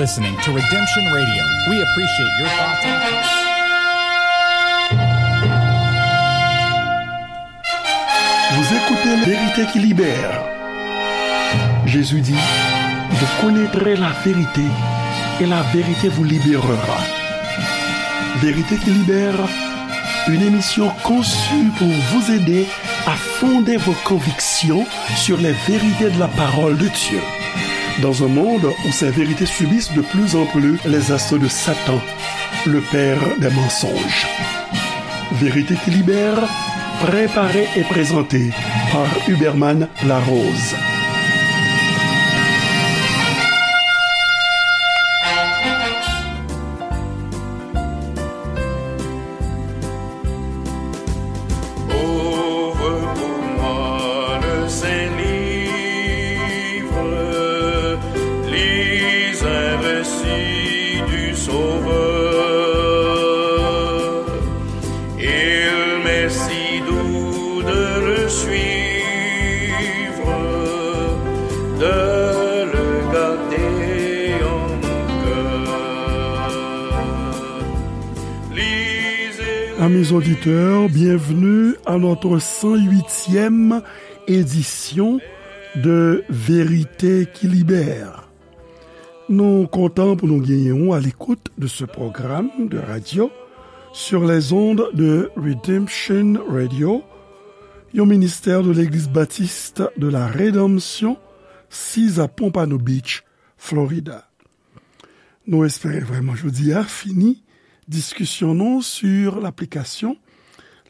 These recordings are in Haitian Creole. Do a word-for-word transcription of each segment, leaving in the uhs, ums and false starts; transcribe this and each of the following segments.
Listening to Redemption Radio. We appreciate your thoughts. Vous écoutez Vérité qui libère. Jésus dit, vous connaîtrez la vérité et la vérité vous libérera. Vérité qui libère, une émission conçue pour vous aider à fonder vos convictions sur les vérités de la parole de Dieu. Dans un monde où ces vérités subissent de plus en plus les assauts de Satan, le père des mensonges. Vérité qui libère, préparée et présentée par Huberman Larose. Ouvre pour moi le saint livre, lis un récit du Sauveur. Il m'est si doux de le suivre, de le garder en mon cœur. Amis auditeurs, bienvenue à notre cent huitième édition de Vérité qui libère. Nou kontan pou nou genyen w à l'écoute de ce programme de radio sur les ondes de Redemption Radio, yon ministè de Legliz Batis de la Redanmsyon, siz a Pompano Beach, Florida. Nou espere vrèman jodi a fini diskisyon nou sur l'application,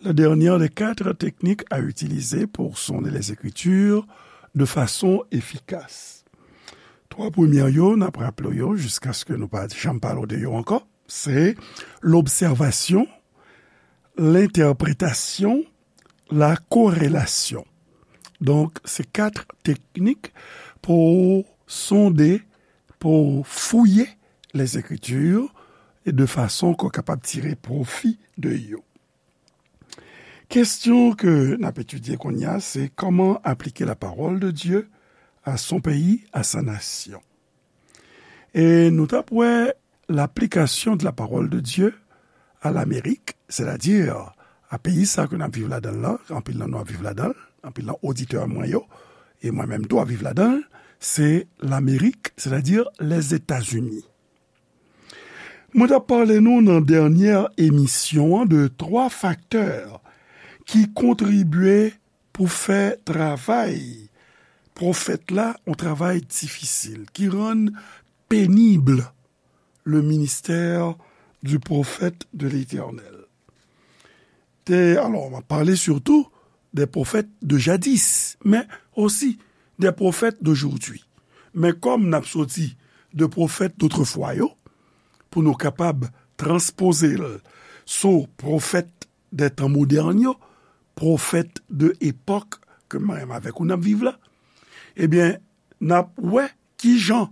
la dernière des quatre techniques à utiliser pour sonder les Écritures de façon efficace. Twa premyè yo, n ap raple yo jiskaske nou pa janm pale de yo ankò. Se lobsèvasyon, lentèpretasyon, la korelasyon. Donk, se kat teknik pou sonde, pou fouye les Écritures, e de fason ke w kapab tire pwofi de yo. Kesyon ke n ap etidye kounye a, se comment appliquer la parole de Dieu à son pays, à sa nation. E nou t ap wè l'application de la parole de Dieu à l'Amérique, c'est-à-dire a peyi sa ke n ap viv ladan l lan, anpil nan nou ap viv ladan l, anpil nan oditè mwen yo, e mwen menm tou ap viv ladan l, se Lamerik, c'est-à-dire les États-Unis. Mwen t ap pale nou nan dènyè emisyon an de twa faktè ki kontribye pou fè travay pwofèt la, yon travay difisil, ki rann pénible le ministère du prophète de l'Éternel. Te, alò, m ap pale surtout des prophètes de jadis, mais aussi des prophètes d'aujourd'hui. Men kòm n ap soti de pwofèt dotrefwa yo, pou nou kapab transpoze l sou pwofèt de tan modèn yo, pwofèt de epòk ke mwen menm avèk ou n ap viv la, ebyen, n ap wè kijan,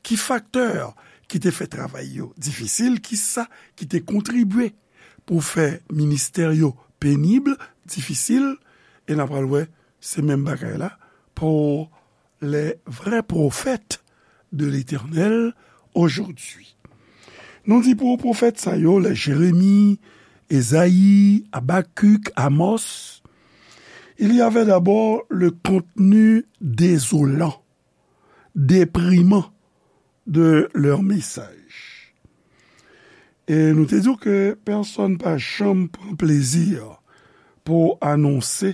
ki faktè ki te fè travay yo difisil, kisa ki te kontribye pou fè ministè yo pénible, difisil, e n ap pral wè se menm bagay la pou les vrais prophètes de l'Éternel aujourd'hui. Nou di pou pwofèt sa yo, les Jérémie, Ésaïe, Habacuc, Amos, il y avait d'abord le contenu désolant, déprimant de leur message. E nou te di w ke pèsonn pa janm pran plezi pou anonse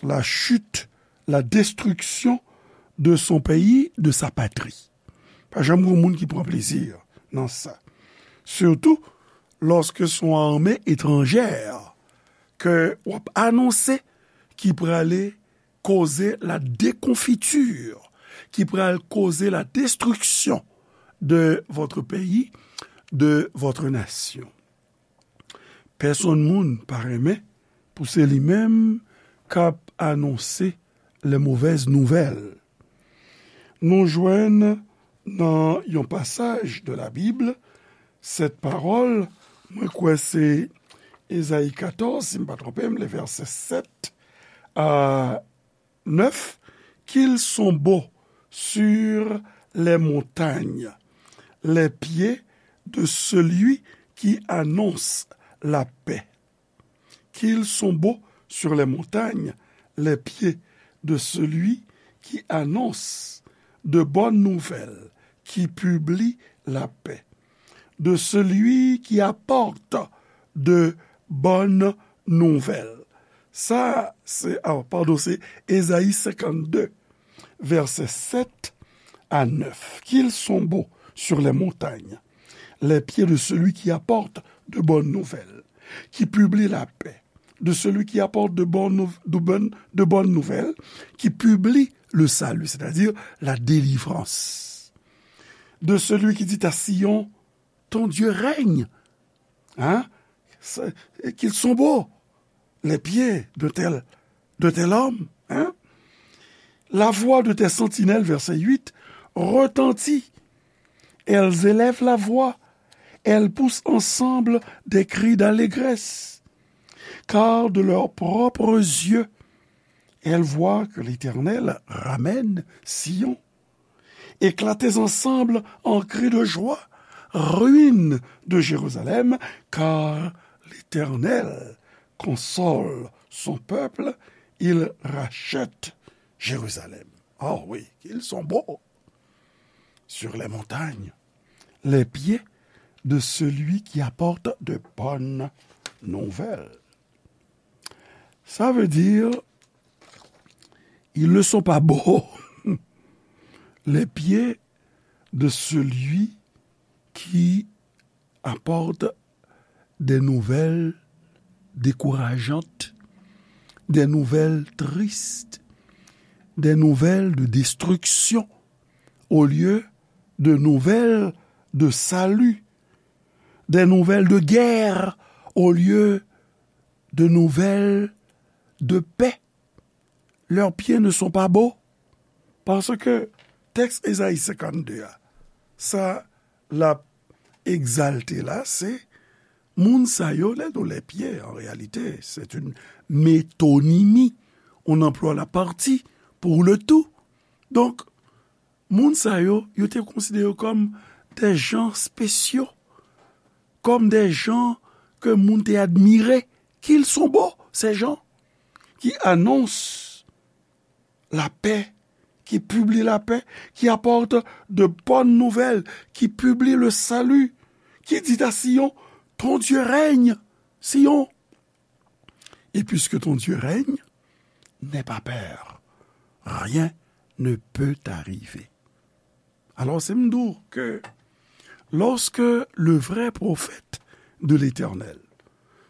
la chute, la destruction de son pays, de sa patrie. Pa janm gen moun ki pran plezi nan sa. Surtout lorsque son armée étrangère ke w ap anonse ki prale koze la déconfiture, ki pral koze la destruction de votre pays, de votre nation. Pèsonn moun pa renmen pou se li menm k ap anonse les mauvaises nouvelles. Nou jwenn nan yon pasaj de la Bible, cette parole, mwen kwè se Ezayi katòz, si m pa twonpe m, le verset sept à neuf, qu'ils sont beaux sur les montagnes, les pieds de celui qui annonce la paix. Qu'ils sont beaux sur les montagnes, les pieds de celui qui annonce de bonnes nouvelles, qui publie la paix, de celui qui apporte de bonnes nouvelles. Sa, se, ah, padon, se Ezayi senkannde, vèsè sèt a nèf. Qu'ils sont beaux sur les montagnes, les pieds de celui qui apporte de bonnes nouvelles, qui publie la paix, de celui qui apporte de bonnes, nou- de bonnes, de bonnes nouvelles, qui publie le salut, c'est-à-dire la délivrance, de celui qui dit à Sion, ton Dieu règne. Hein? Qu'ils sont beaux, les pieds de tel, de tel homme. Hein? La voix de tes sentinelles, verset huit, retentit. Elles élèvent la voix, elles poussent ensemble des cris d'allégresse. Car de leurs propres yeux, elles voient que l'Éternel ramène Sion. Éclatez ensemble en cris de joie, ruines de Jérusalem, car l'Éternel console son peuple, il rachète Jérusalem. Oh oui, qu'ils sont beaux sur les montagnes, les pieds de celui qui apporte de bonnes nouvelles. Ça veut dire, ils ne sont pas beaux, les pieds de celui qui apporte des nouvelles décourageantes, des nouvelles tristes, des nouvelles de destruction, au lieu de nouvelles de salut, des nouvelles de guerre, au lieu de nouvelles de paix. Leurs pieds ne sont pas beaux. Paske tèks Ezayi senkannde a, sa l ap egzalte la, se moun sa yo, lè nou les pieds, en réalité, c'est une métonymie. On emploie la partie pour le tout. Donk, moun sa yo, yo te konsidere yo kòm des gens spéciaux, comme des gens que moun te admire, qu'ils sont beaux, ces gens qui annoncent la paix, qui publient la paix, qui apportent de bonnes nouvelles, qui publient le salut, qui dit à Sion, ton Dieu règne, Sion. Et puisque ton Dieu règne, n'aie pas peur. Rien ne peut t'arriver. Alors, c'est m di w que lorsque le vrai prophète de l'Éternel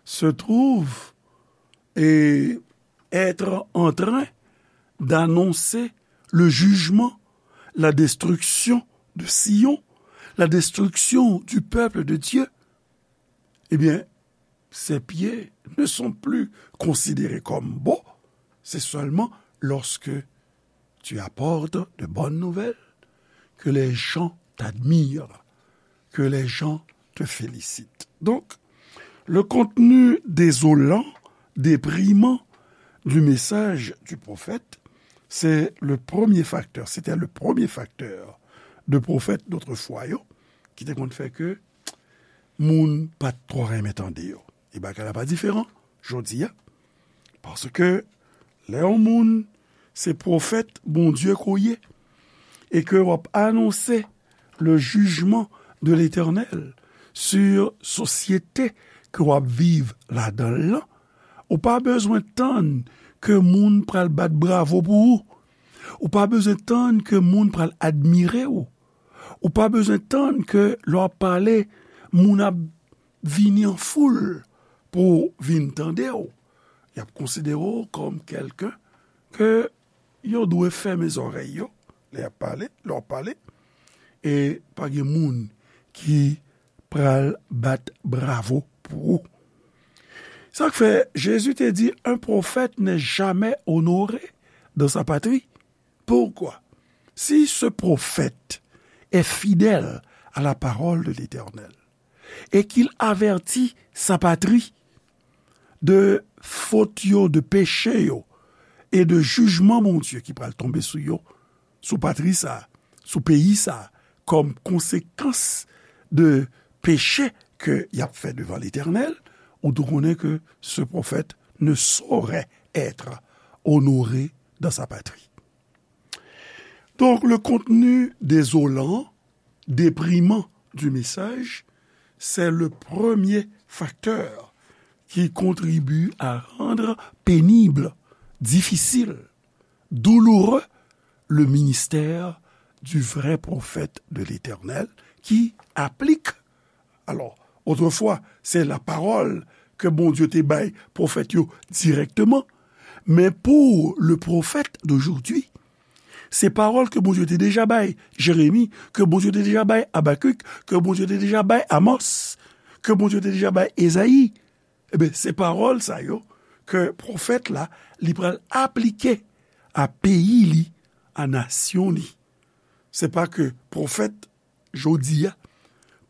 se trouve et être en train d'annoncer le jugement, la destruction de Sion, la destruction du peuple de Dieu, eh bien, ses pieds ne sont plus considérés comme beaux. C'est seulement lorsque tu apportes de bonnes nouvelles que les gens t'admirent, que les gens te félicitent. Donc, le contenu désolant, déprimant du message du prophète, c'est le premier facteur, c'était le premier facteur de pwofèt dotrefois yo, ki te konn fè ke moun pa t twò renmen tande yo. E bagay la pa diferan jodi a. Paske lè yon moun se pwofèt Bondye ke w ye, e ke w ap anonse le jugement de l'Éternel sur sosyete ke w ap viv ladan l lan, ou pa bezwen tann ke moun pral bat bravo pou ou. Ou pa bezwen tann ke moun pral admire w. Ou pa bezwen tann ke lè w ap pale, moun ap vini an foul pou vin tande w. Y ap konsidere w kòm kèlken ke yo dwe fèmen zòrèy yo lè y ap pale, lè w ap pale. E pa gen moun ki pral bat bravo pou ou. Sa k fè Jezi te di, un prophète n'est jamais honoré dans sa patrie. Pourquoi? Si ce prophète est fidèle à la parole de l'Éternel et qu'il avertit sa patrie de fot yo, de peche yo, e de jijman Bondye ki pral tonbe sou yo, sou patri sa, sou peyi sa, kòm konsekans de peche ke y ap fè devan Letènèl, ou tou konnen ke ce prophète ne saurait être honoré dans sa patrie. Donc, le contenu désolant, déprimant du message, c'est le premier facteur qui contribue à rendre pénible, difficile, douloureux le ministère du vrai prophète de l'Éternel qui applique. Alors, autrefois, c'est la parole que Bondye te bay pwofèt yo dirèkteman, men pour le prophète d'aujourd'hui, se pawòl ke Bondye te deja bay Jeremi, ke Bondye te deja bay Abakik, ke Bondye te deja bay Amos, ke Bondye te deja bay Ezayi. Ebyen, se pawòl sa yo ke pwofèt la, li pral aplike a peyi li, a nasyon li. Se pa ke pwofèt jodi a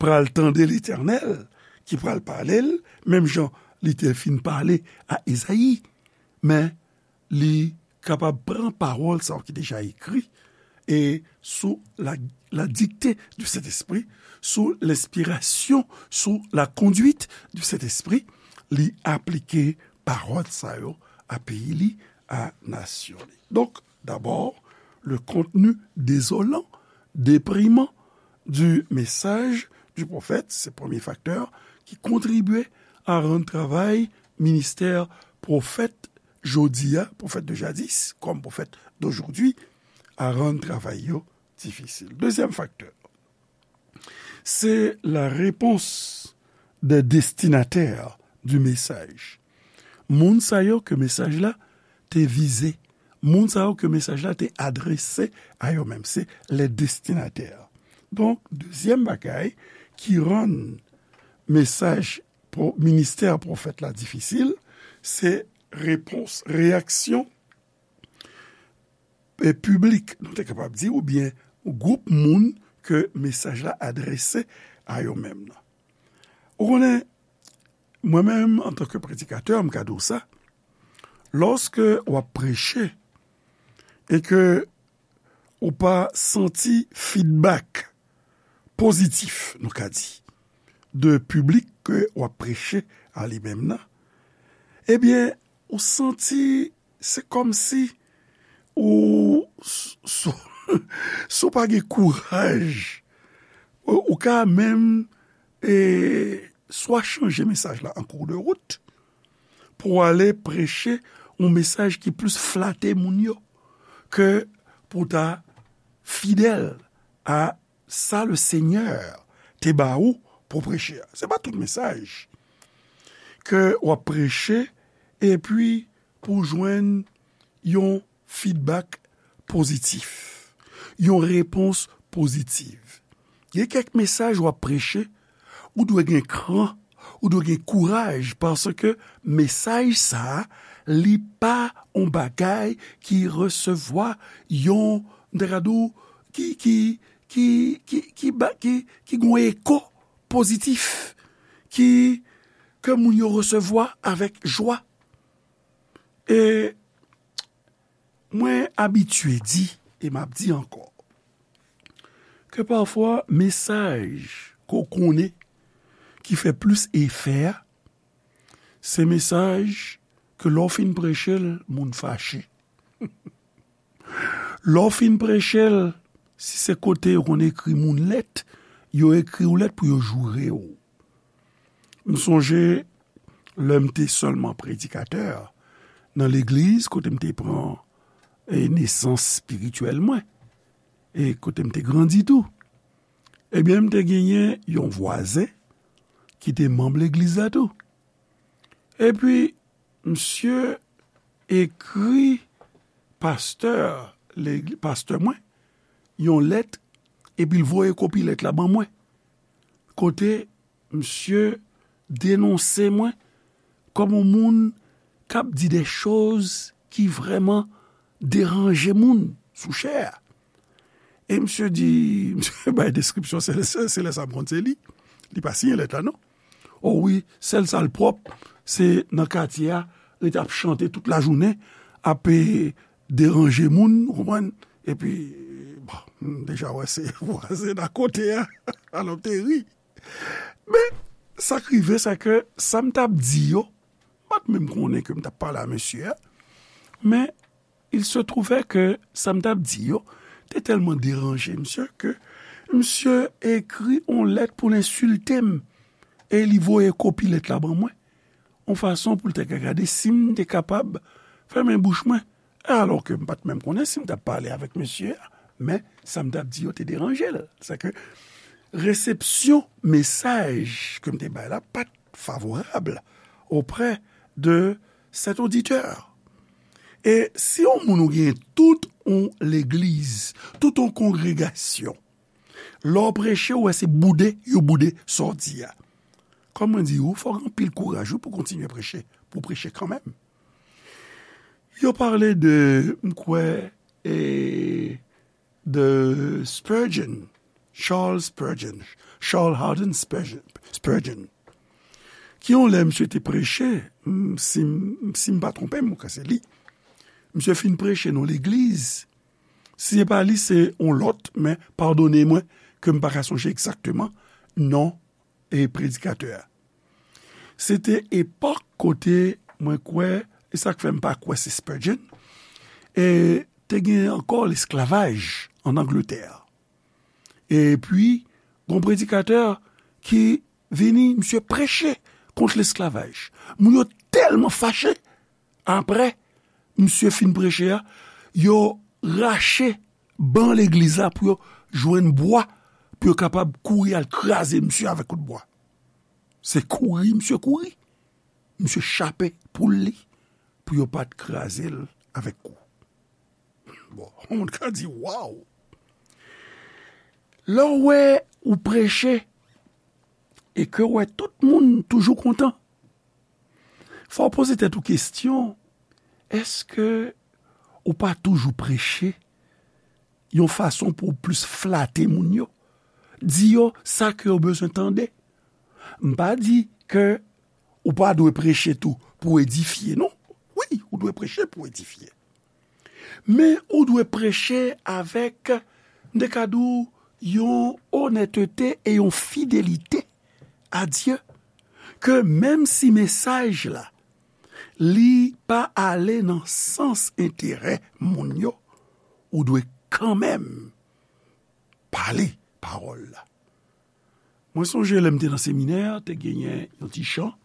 pral tande Letènèl ki pral pale l, menm jan li te fin pale a Ezayi, men li kapab pran pawòl sa yo ki deja ekri, e sou la, la dictée du Saint-Esprit, sous l'inspiration, sous la conduite du Saint-Esprit, li aplike pawòl sa yo a peyi li, a nasyon li. Donc, d'abord, le contenu désolant, déprimant du message du prophète, se premye faktè ki kontribye a rann travay ministè pwofèt jodi a, pwofèt de jadis, kòm pwofèt d'aujourd'hui, a rann travay yo difisil. Dezyèm faktè, se la réponse des destinataires du message. Moun sa yo ke mesaj la te vize, moun sa yo ke mesaj la te adrese a yo menm, se les destinataires. Donk, dezyèm bagay ki rann mesaj pwo-, ministè pwofèt la difisil, se repons, reyaksyon, e, piblik, nou te kapab di, oubyen gwoup moun ke mesaj la adrese a yo menm nan. Ou konnen, mwen menm, antanke predikatè, m ka di w sa, lòske w ap preche e ke ou pa santi feedback pozitif, nou ka di, de piblik ke w ap preche a li menm nan, ebyen, ou santi se kòmsi ou, s-, s-, si w pa gen kouraj, ou, ou ka menm, e, swa chanje mesaj la an kou de wout, pou w ale preche yon mesaj ki plis flate moun yo ke pou w ta fidèl a sa le Senyè te ba ou pou preche a. Se pa tout mesaj ke w ap preche epi pou w jwenn yon feedback pozitif, yon repons pozitif. Gen kèk mesaj w ap preche, ou dwe gen kran, ou dwe gen kouraj, paske mesaj sa a, li pa yon bagay ki resevwa yon, m ta ka di w, ki, ki, ki, ki, ki ba, ki, ki gen yon eko pozitif, ki, ke moun yo resevwa avèk jwa. E mwen abitye di, e m ap di ankò, ke pafwa mesaj ke w konnen ki fè plis efè a, se mesaj ke lè w fin preche l, moun fache. Lè w fin preche l, si se kote yo konn ekri moun lèt, yo ekri w lèt pou yo joure w. M sonje lè m te sèlman predikatè nan legliz kote m te pran, e, nesans espirityèl mwen, e kote m te grandi tou. Ebyen, m te genyen yon vwazen ki te manm legliz la tou. Epi, misye ekri pastè, legli-, pastè mwen, yon lèt, epi l voye kopi lèt la ban mwen. Kote misye denonse mwen kòm yon moun k ap di de choz ki vrèman deranje moun sou chè a. E misye di, misye bay deskripsyon, se, se, se lè sa m konn se li. Li pa siyen lèt la, non. O wi, sèl sa l pwòp, se nan katye a, rete ap chante tout lajounen, ap, e, deranje moun, ou konprann? Epi, bon, M deja wè se vwazen akote a. Alò, m te ri. Men, sa k rive, se ke sa m t ap di yo, m pa t menm konnen ke m t ap pale a mesye a. Men, il se trouvait que sa m t ap di yo te tèlman deranje misye ke misye ekri yon lèt pou l ensilte m. E li voye kopi lèt la ban mwen, yon fason pou l te ka gade si m te kapab fèmen bouch mwen. Alò ke m pa t menm konnen si m t ap pale avèk mesye a, men sa m t ap di yo te deranje l. Sa ke resepsyon mesaj ke m te bay la pa t favorab auprès de cet auditeur. E si yon moun ou gen tout yon legliz, tout yon kongregasyon, lè w preche, ou wè se boude, yo boude sa w di a. Kòm mwen di ou, fò w gen anpil kouraj wi pou w kontinye preche, pou w preche kanmenm. Yo pale de, m kwè, e, de Spurgeon, Charles Spurgeon, Charles Haddon Spurgeon, Spurgeon, ki yon lè misye te preche, m, si m, si m pa twonpe m, m kwè se li. Misye fin preche nan legliz. Si se pa li, se yon lòt, men padone mwen ke m pa ka sonje egzakteman non e predikatè a. Se te epòk kote mwen kwè, e sa k fè m pa kwè se Spurgeon, e te gen ankò lesklavaj ann Angletè. Epi, gon predikatè ki vini, misye preche kont lesklavaj. Moun yo tèlman fache, apre misye fin preche a, yo rache ban legliz la pou yo jwenn bwa, pou yo kapab kouri al kraze misye avèk kout bwa. Se kouri misye kouri. Misye chape poul li pou yo pa t kraze l avèk kou. Bon, yon moun ka di, waw! Lè w wè ou preche e ke w wè tout moun toujou kontan, fò w poze tèt ou kesyon, èske ou pa toujou preche yon fason pou w plis flate moun yo? Di yo sa ke yo bezwen tande. M pa di ke ou pa dwe preche tou pou edifye, non. Wi, ou dwe preche pou edifye. Men ou dwe preche avèk, m te ka di w, yon onètete e yon fidelite a Dye, ke menm si mesaj la, li pa ale nan sans enterè moun yo, ou dwe kanmenm pale pawòl la. Mwen sonje lè m te nan seminè, te genyen yon ti chan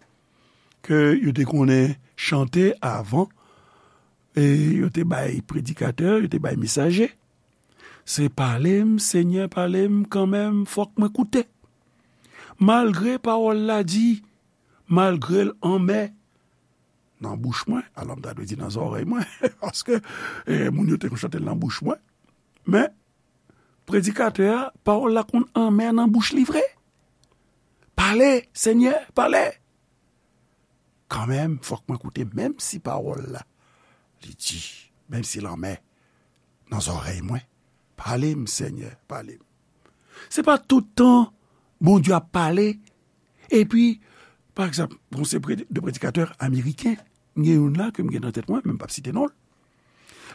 ke yo te konnen chante avan, e yo te bay predikatè, yo te bay mesaje. Se pale m, Senyè, pale m kanmenm, fòk mwen koute. Malgre pawòl la di, malgre l anmè nan bouch mwen, alò m ta dwe di nan zòrèy mwen, paske, eh, moun yo te konn chante l nan bouch mwen. Men, predikatè a, pawòl la konn anmè nan bouch li vre. Pale, Senyè, pale. Kanmenm, fòk mwen koute, menm si pawòl la, li di, menm si l anmè nan zòrèy mwen. Pale m, Senyè, pale m. Se pa tout tan Bondye ap pale, epi, pa egzanp, bon, se pre-, de predikatè ameriken, m gen youn la ke m gen nan tèt mwen, men m p ap site non l.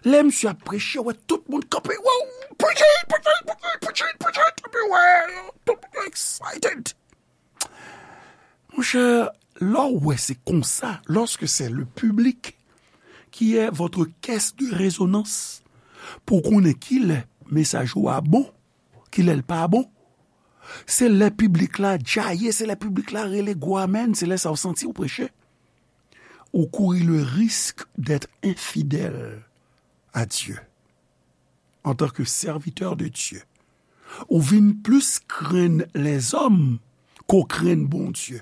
Lè misye ap preche, wè tout moun kanpe, wow, preach it, preach it, preach it, preach it, preach it, epi wè, tout moun excited. Monchè, lè w wè se konsa, lorsque c'est le public qui est votre caisse de résonance, pou konnen kilè mesaj ou a bon, kilè l pa bon, se lè piblik la djaye, se lè piblik la rele gwo amèn, se lè sa w santi w preche. Ou kouri le risque d'être infidèle à Dieu. En tant que serviteur de Dieu, ou vin plis krenn lèzòm ke w krenn Bondye.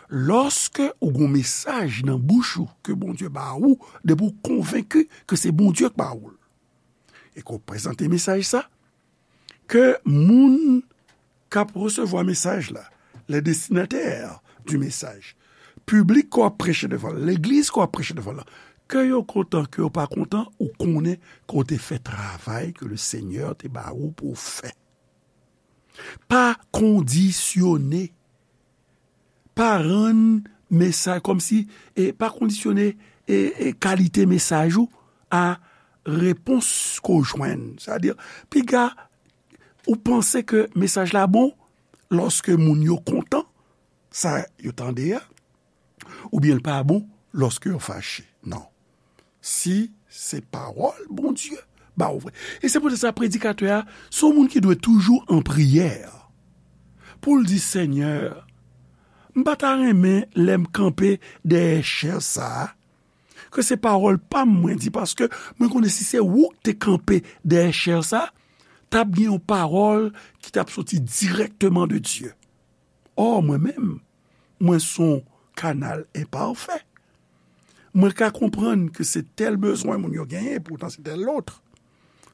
Lòske ou gon mesaj nan bouch ou ke Bondye ba ou, depi w konvenki ke se Bondye k ba ou l, e ke w prezante mesaj sa, ke moun k ap resevwa mesaj la, les destinataires du message, piblik ke w ap preche devan l, legliz ke w ap preche devan l, ke yo kontan, ke yo pa kontan, ou konnen ke w te fè travay ke le Senyè te ba ou pou w fè. Pa kondisyone. Pa rann mesaj kòmsi, e pa kondisyone, e, e kalite mesaj ou a, repons ke w jwenn. Sètadi, piga ou panse ke mesaj la bon lòske moun yo kontan sa yo tande a, oubyen l pa bon lòske yo fache. Non. Si se pawòl Bondye ba w vre. E se poutèt sa predikatè a se yon moun ki dwe toujou an priyè pou l di, Senyè, m pa ta renmen lè m kanpe dèyè chè sa a, ke se pawòl pa m mwen di, paske mwen konnen si se ou k te kanpe dèyè chè sa, t ap gen yon pawòl ki t ap soti dirèkteman de Dye. Ò, mwen menm, mwen se yon kanal enpafè. Mwen ka konprann ke se tèl bezwen moun yo genyen, poutan se tèl lòt.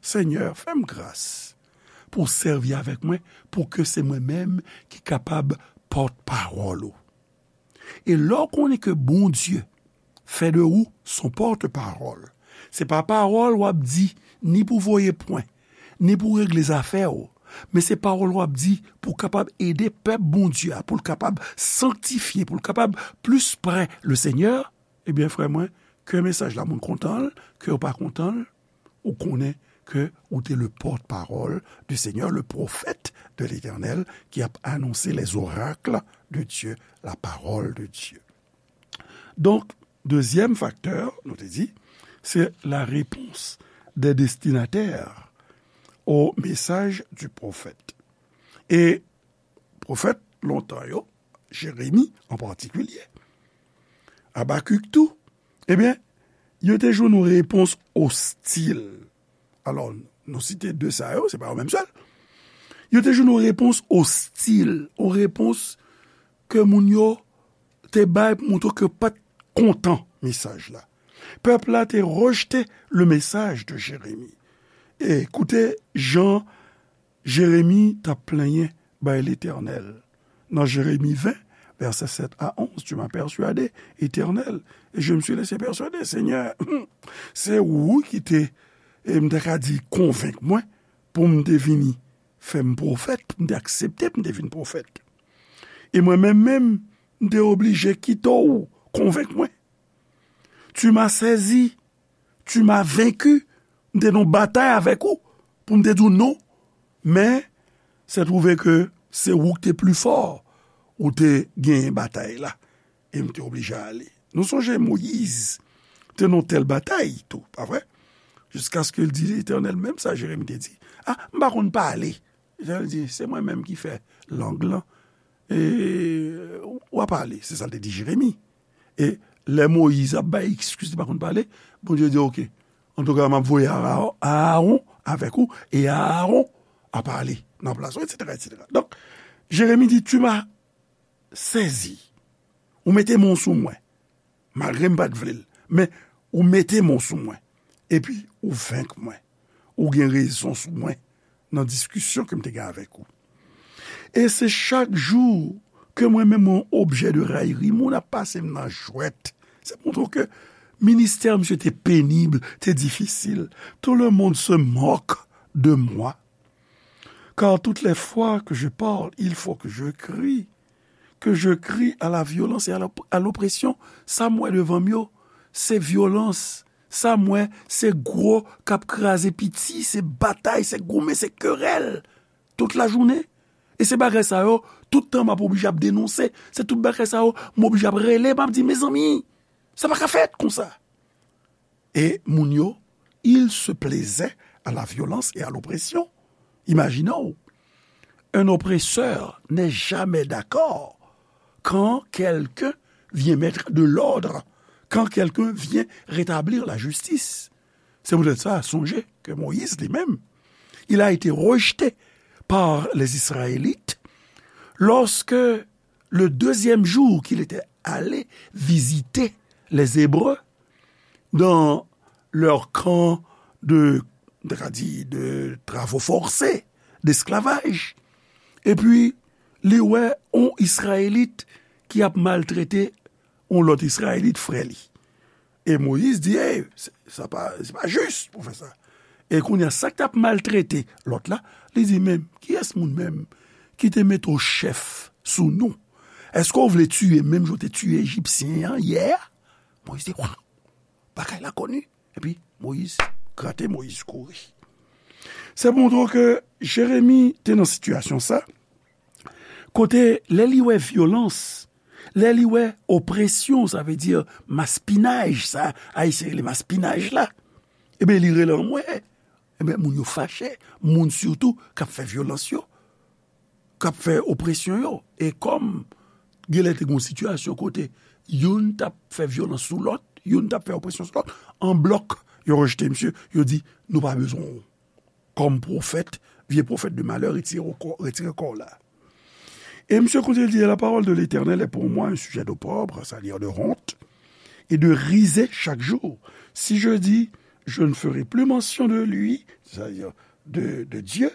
Senyè, fè m gras pou w sèvi avèk mwen, pou ke se mwen menm ki kapab pòtpawòl ou. E lè w konnen ke Bondye fè de ou son pòtpawòl, se pa pawòl w ap di ni pou voye pwen, ni pou regle zafè w, men se pawòl w ap di pou w kapab ede pèp Bondye a, pou l kapab sanktifye, pou l kapab plis prè le Senyè, ebyen, frè mwen, ke mesaj la moun kontan l, ke yo pa kontan l, ou konnen ke ou te le porte-parole du Seigneur, le prophète de l'Éternel, ki ap anonse les oracles de Dieu, la parole de Dieu. Donk, dezyèm faktè, nou te di, se la réponse des destinataires au message du prophète. E pwofèt lontan yo, Jeremi an patikilye, Abakik tou, ebyen, yo te jwenn yon repons ostil. Alò, nou site de sa yo, se pa yo menm sèl. Yo te jwenn yon repons ostil, yon repons ke moun yo te bay pou montre ke yo pa t kontan mesaj la. Pèp la te rejte le message de Jérémie. E koute jan Jeremi t ap plenyen bay Letènèl. Nan Jeremi ven, vèsè sèt a onz, tu m'as persuadé, Éternel, et je me suis laissé persuader, Senyè, se ou ki te, e m ta ka di, konvenk mwen pou m te vini fè m pwofèt, pou m te aksepte pou m te vin pwofèt. E mwen menm menm, m te oblije kite w konvenk mwen. Tu m'as saisi, tu m'as vaincu, m te nan batay avèk ou, pou m te di w non, men se twouve ke se ou ki te pli fò, ou te genyen batay la, e m te oblije ale. Nou sonje Moyiz te nan tèl batay tou, pa vre? Jiskaske l di Letènèl menm sa Jeremi te di, a, m pa konn pale. Letènèl di, se mwen menm ki fè lang lan, e w a pale, se sa l te di Jeremi. E lè Moyiz ap bay eskiz li pa konn pale, Bondye di, oke, antouka, m ap voye Aaron avèk ou, e Aaron a pale nan plas ou, etsetera, etsetera. Donk, Jeremi di, tu m'as saisi. Ou mete men w sou mwen. Malgre m pa t vle l. Men, ou mete men w sou mwen. Epi, ou venk mwen. Ou gen rezon sou mwen nan diskisyon ke m te gen avèk ou. E se chak jou ke mwen menm yon objè de rayri, moun ap pase m nan jwèt. Se montre w ke ministè misye te penib, te difisil. Tout le monde se moque de moi. Car toutes les fois que je parle, il faut que je crie. Que je crie à la violence et à l'op-, à l'oppression. Sa m wè devan m yo, se vyolans. Sa m wè, se gwo k ap kraze piti, se batay, se goumen, se kerèl. Tout lajounen. E se bagay sa yo, tout tan m ap oblije ap denonse. Se tout bagay sa yo, m oblije ap rele, m ap di, mezanmi, sa pa ka fèt konsa. E moun yo, ils se plaisaient à la violence et à l'oppression. Imagine-w, un oppresseur n'est jamais d'accord quand quelqu'un vient mettre de l'ordre, quand quelqu'un vient rétablir la justice. Se poutèt sa, sonje ke Moyiz li menm, il a été rejeté par les Israélites lorsque le deuxième jour qu'il était allé visiter les Hébreux dans leur camp de, de, de travaux forcés, d'esclavage. Epi, li wè yon Izrayelit ki ap maltrete yon lòt Izrayelit frè li. E Moyiz di, ey, se, sa pa, se pa jis pou fè sa. E kounye a, sa k t ap maltrete lòt la, li di, men, kiyès moun menm ki te mete w chèf sou nou? Èske w vle tiye menm jan w te tiye Ejipsyen an yè a? Moyiz di, wa, bagay la koni. Epi, Moyiz Grate Moyiz kouri. Se pou montre w ke Jeremi te nan sitiyasyon sa, kote lè li wè vyolans, lè li wè opresyon, sa vle di maspinaj, sa Ayisyen rele maspinaj la, ebyen, li rele anmwe. Ebyen, moun yo fache, moun sitou k ap fè vyolans yo, k ap fè opresyon yo. E kòm genlè te gen yon sitiyasyon kote youn t ap fè vyolans sou lòt, youn t ap fè opresyon sou lòt, an blòk, yo rejte misye, yo di, "Nou pa bezwen w kòm pwofèt, vye pwofèt de malè, retire w kò, retire kò w la." Et monsieur continue de dire, la parole de l'Éternel est pour moi un sujet d'opprobre, c'est-à-dire de honte, et de risée chaque jour. Si je dis, je ne ferai plus mention de lui, c'est-à-dire de, de Dieu,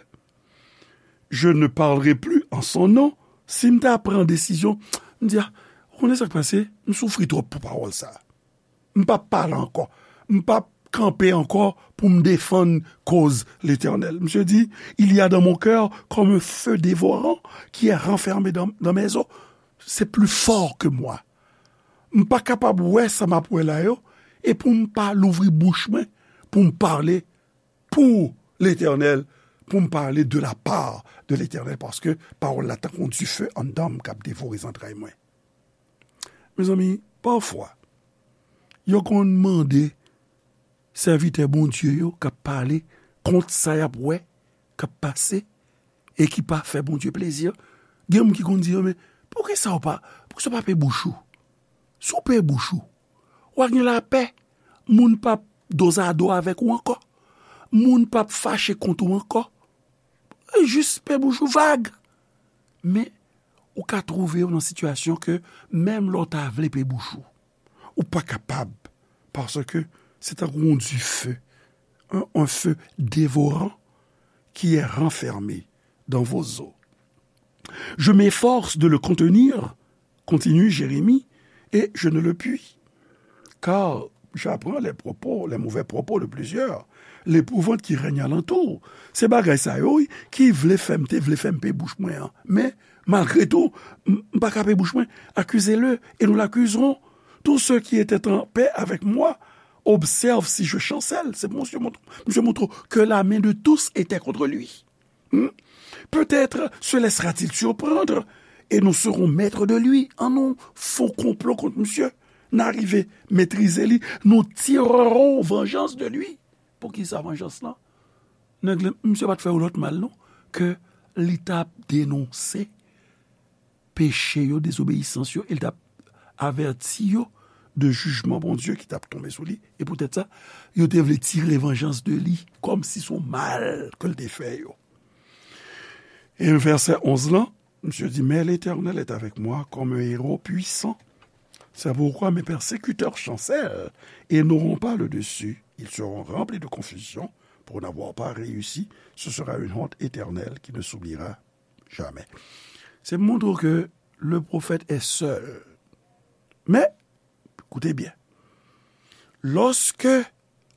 je ne parlerai plus en son nom. Si m ta pran desizyon, m di, a, ou konnen sa k pase, m soufri twòp pou pawòl sa. M p ap pale ankò. M p ap kanpe ankò pou m defann koz Letènèl. Misye di, il y a dans mon cœur comme un feu dévorant qui est renfermé dans, dans mes os. C'est plus fort que moi. M pa kapab wè sa m ap wè la yo, e pou m pa louvri bouch mwen, pou m pale pou Letènèl, pou m pale de la part de Letènèl, paske pawòl la tankou yon dife anndan m k ap devore zantray mwen. Mezanmi, pafwa, yo konn mande sèvitè Bondye yo k ap pale kont sa y ap wè k ap pase e ki pa fè Bondye plezi. Gen moun ki konn di yo, "Men, poukisa w pa, poukisa w pa pe bouch ou? Si w pe bouch ou, w a gen lapè. Moun p ap dozado avèk ou ankò. Moun p ap fache kont ou ankò." Jis pe bouch ou vag. Men, ou ka twouve w nan sitiyasyon ke menm lè w ta vle pe bouch ou, ou pa kapab, paske se tankou yon dife, un, un feu dévorant qui est renfermé dans vos os. Je m'efforce de le contenir, continue Jérémie, et je ne le puis. Car j'apprends les propos, les mauvais propos de plusieurs, l'épouvante qui règne alentour. Se bagay sa yo, wi, ki vle fè m, te vle fè m pe bouch mwen an. Men, malgre tou, m, m pa ka pe bouch mwen. Accusez-le, et nous l'accuserons. Tous ceux qui étaient en paix avec moi observent si je chancelle. C'est pour monsieur montre, monsieur montre que la main de tous était contre lui. Hmm? Peut-être se laissera-t-il surprendre et nous serons maîtres de lui. An nou fè yon konplo kont misye. N a rive metrize li. Nous tirerons vengeance de lui. Poukisa vanjans lan? Nèg la, misye pa t fè yo lòt mal, non. Ke li t ap denonse peche yo, dezobeyisans yo, e l t ap avèti yo de jijman Bondye ki t ap tonbe sou li. E poutèt sa, yo te vle tire vanjans de li, kòmsi se yon mal ke l te fè yo. E vèsè onz lan, misye di, mais l'Éternel est avec moi comme un héros puissant. C'est pourquoi mes persécuteurs chancellent et n'auront pas le dessus. Ils seront remplis de confusion pour n'avoir pas réussi. Ce sera une honte éternelle qui ne s'oubliera jamais. Se montre ke le prophète est seul. Men, koute byen. Lòske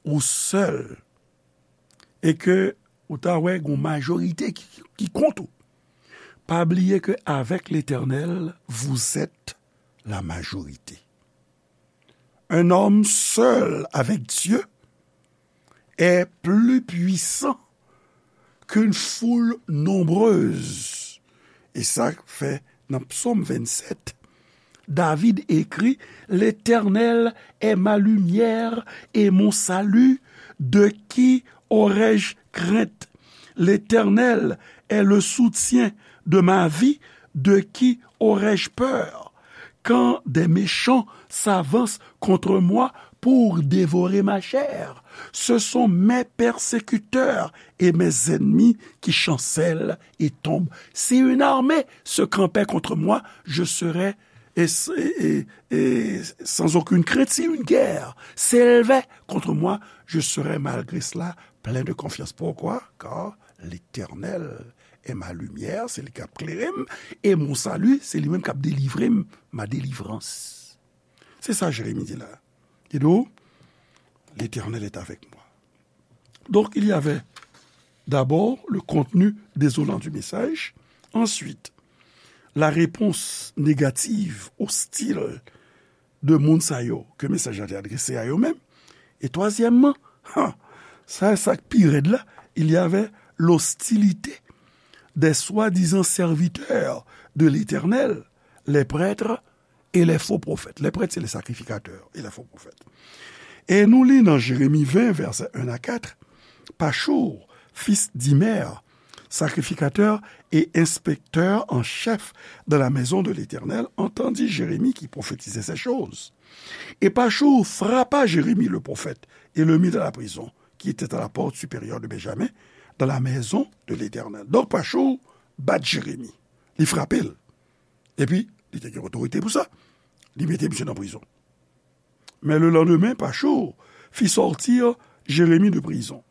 ou sèl e ke ou ta wè gon majorite ki, ki kont ou, pa bliye ke avec l'Éternel, vous êtes la majorité. Un homme seul avec Dieu est plus puissant qu'une foule nombreuse. E sa fè nan Psaume vingt-sept, David écrit, l'Éternel est ma lumière et mon salut, de qui aurais-je crainte? L'Éternel est le soutien de ma vie, de qui aurais-je peur? Quand des méchants s'avancent contre moi pour dévorer ma chair, ce sont mes persécuteurs et mes ennemis qui chancellent et tombent. Si une armée se campait contre moi, je serais et, et, et, et sans aucune crainte. Si une guerre s'élevait contre moi, je serais malgré cela plein de confiance. Pourquoi? Car l'Éternel est ma lumière, se li k ap klere m, et mon salut, se li menm k ap delivre m, ma délivrance. Se sa Jeremi di la. Li di w, l'Éternel est avec moi. Donc, il y avait d'abord le contenu désolant du message. Ensuite, la réponse négative, hostile de moun sa yo ke mesaj la te adrese a yo menm. E twazyèmman, ha, Sa, sa k pi rèd la, il y avait l'hostilité des soi-disant serviteurs de l'Éternel, les prêtres et les faux prophètes. Les prêtres, c'est les sacrificateurs et les faux prophètes. E nou li nan Jérémie vingt, versets un à quatre, Pachur, fils d'Imer, sacrificateur et inspecteur en chef dans la maison de l'Éternel, entendit Jérémie qui prophétisait ces choses. Et Pachur frappa Jérémie le prophète et le mit dans la prison, qui était à la porte supérieure de Benjamin, dans la maison de l'Éternel. Donk, Pachou bat Jeremi. Li frape l. Epi, li te gen otorite pou sa. Li mete misye nan prizon. Mais le lendemain, Pachou fit sortir Jérémie de prison.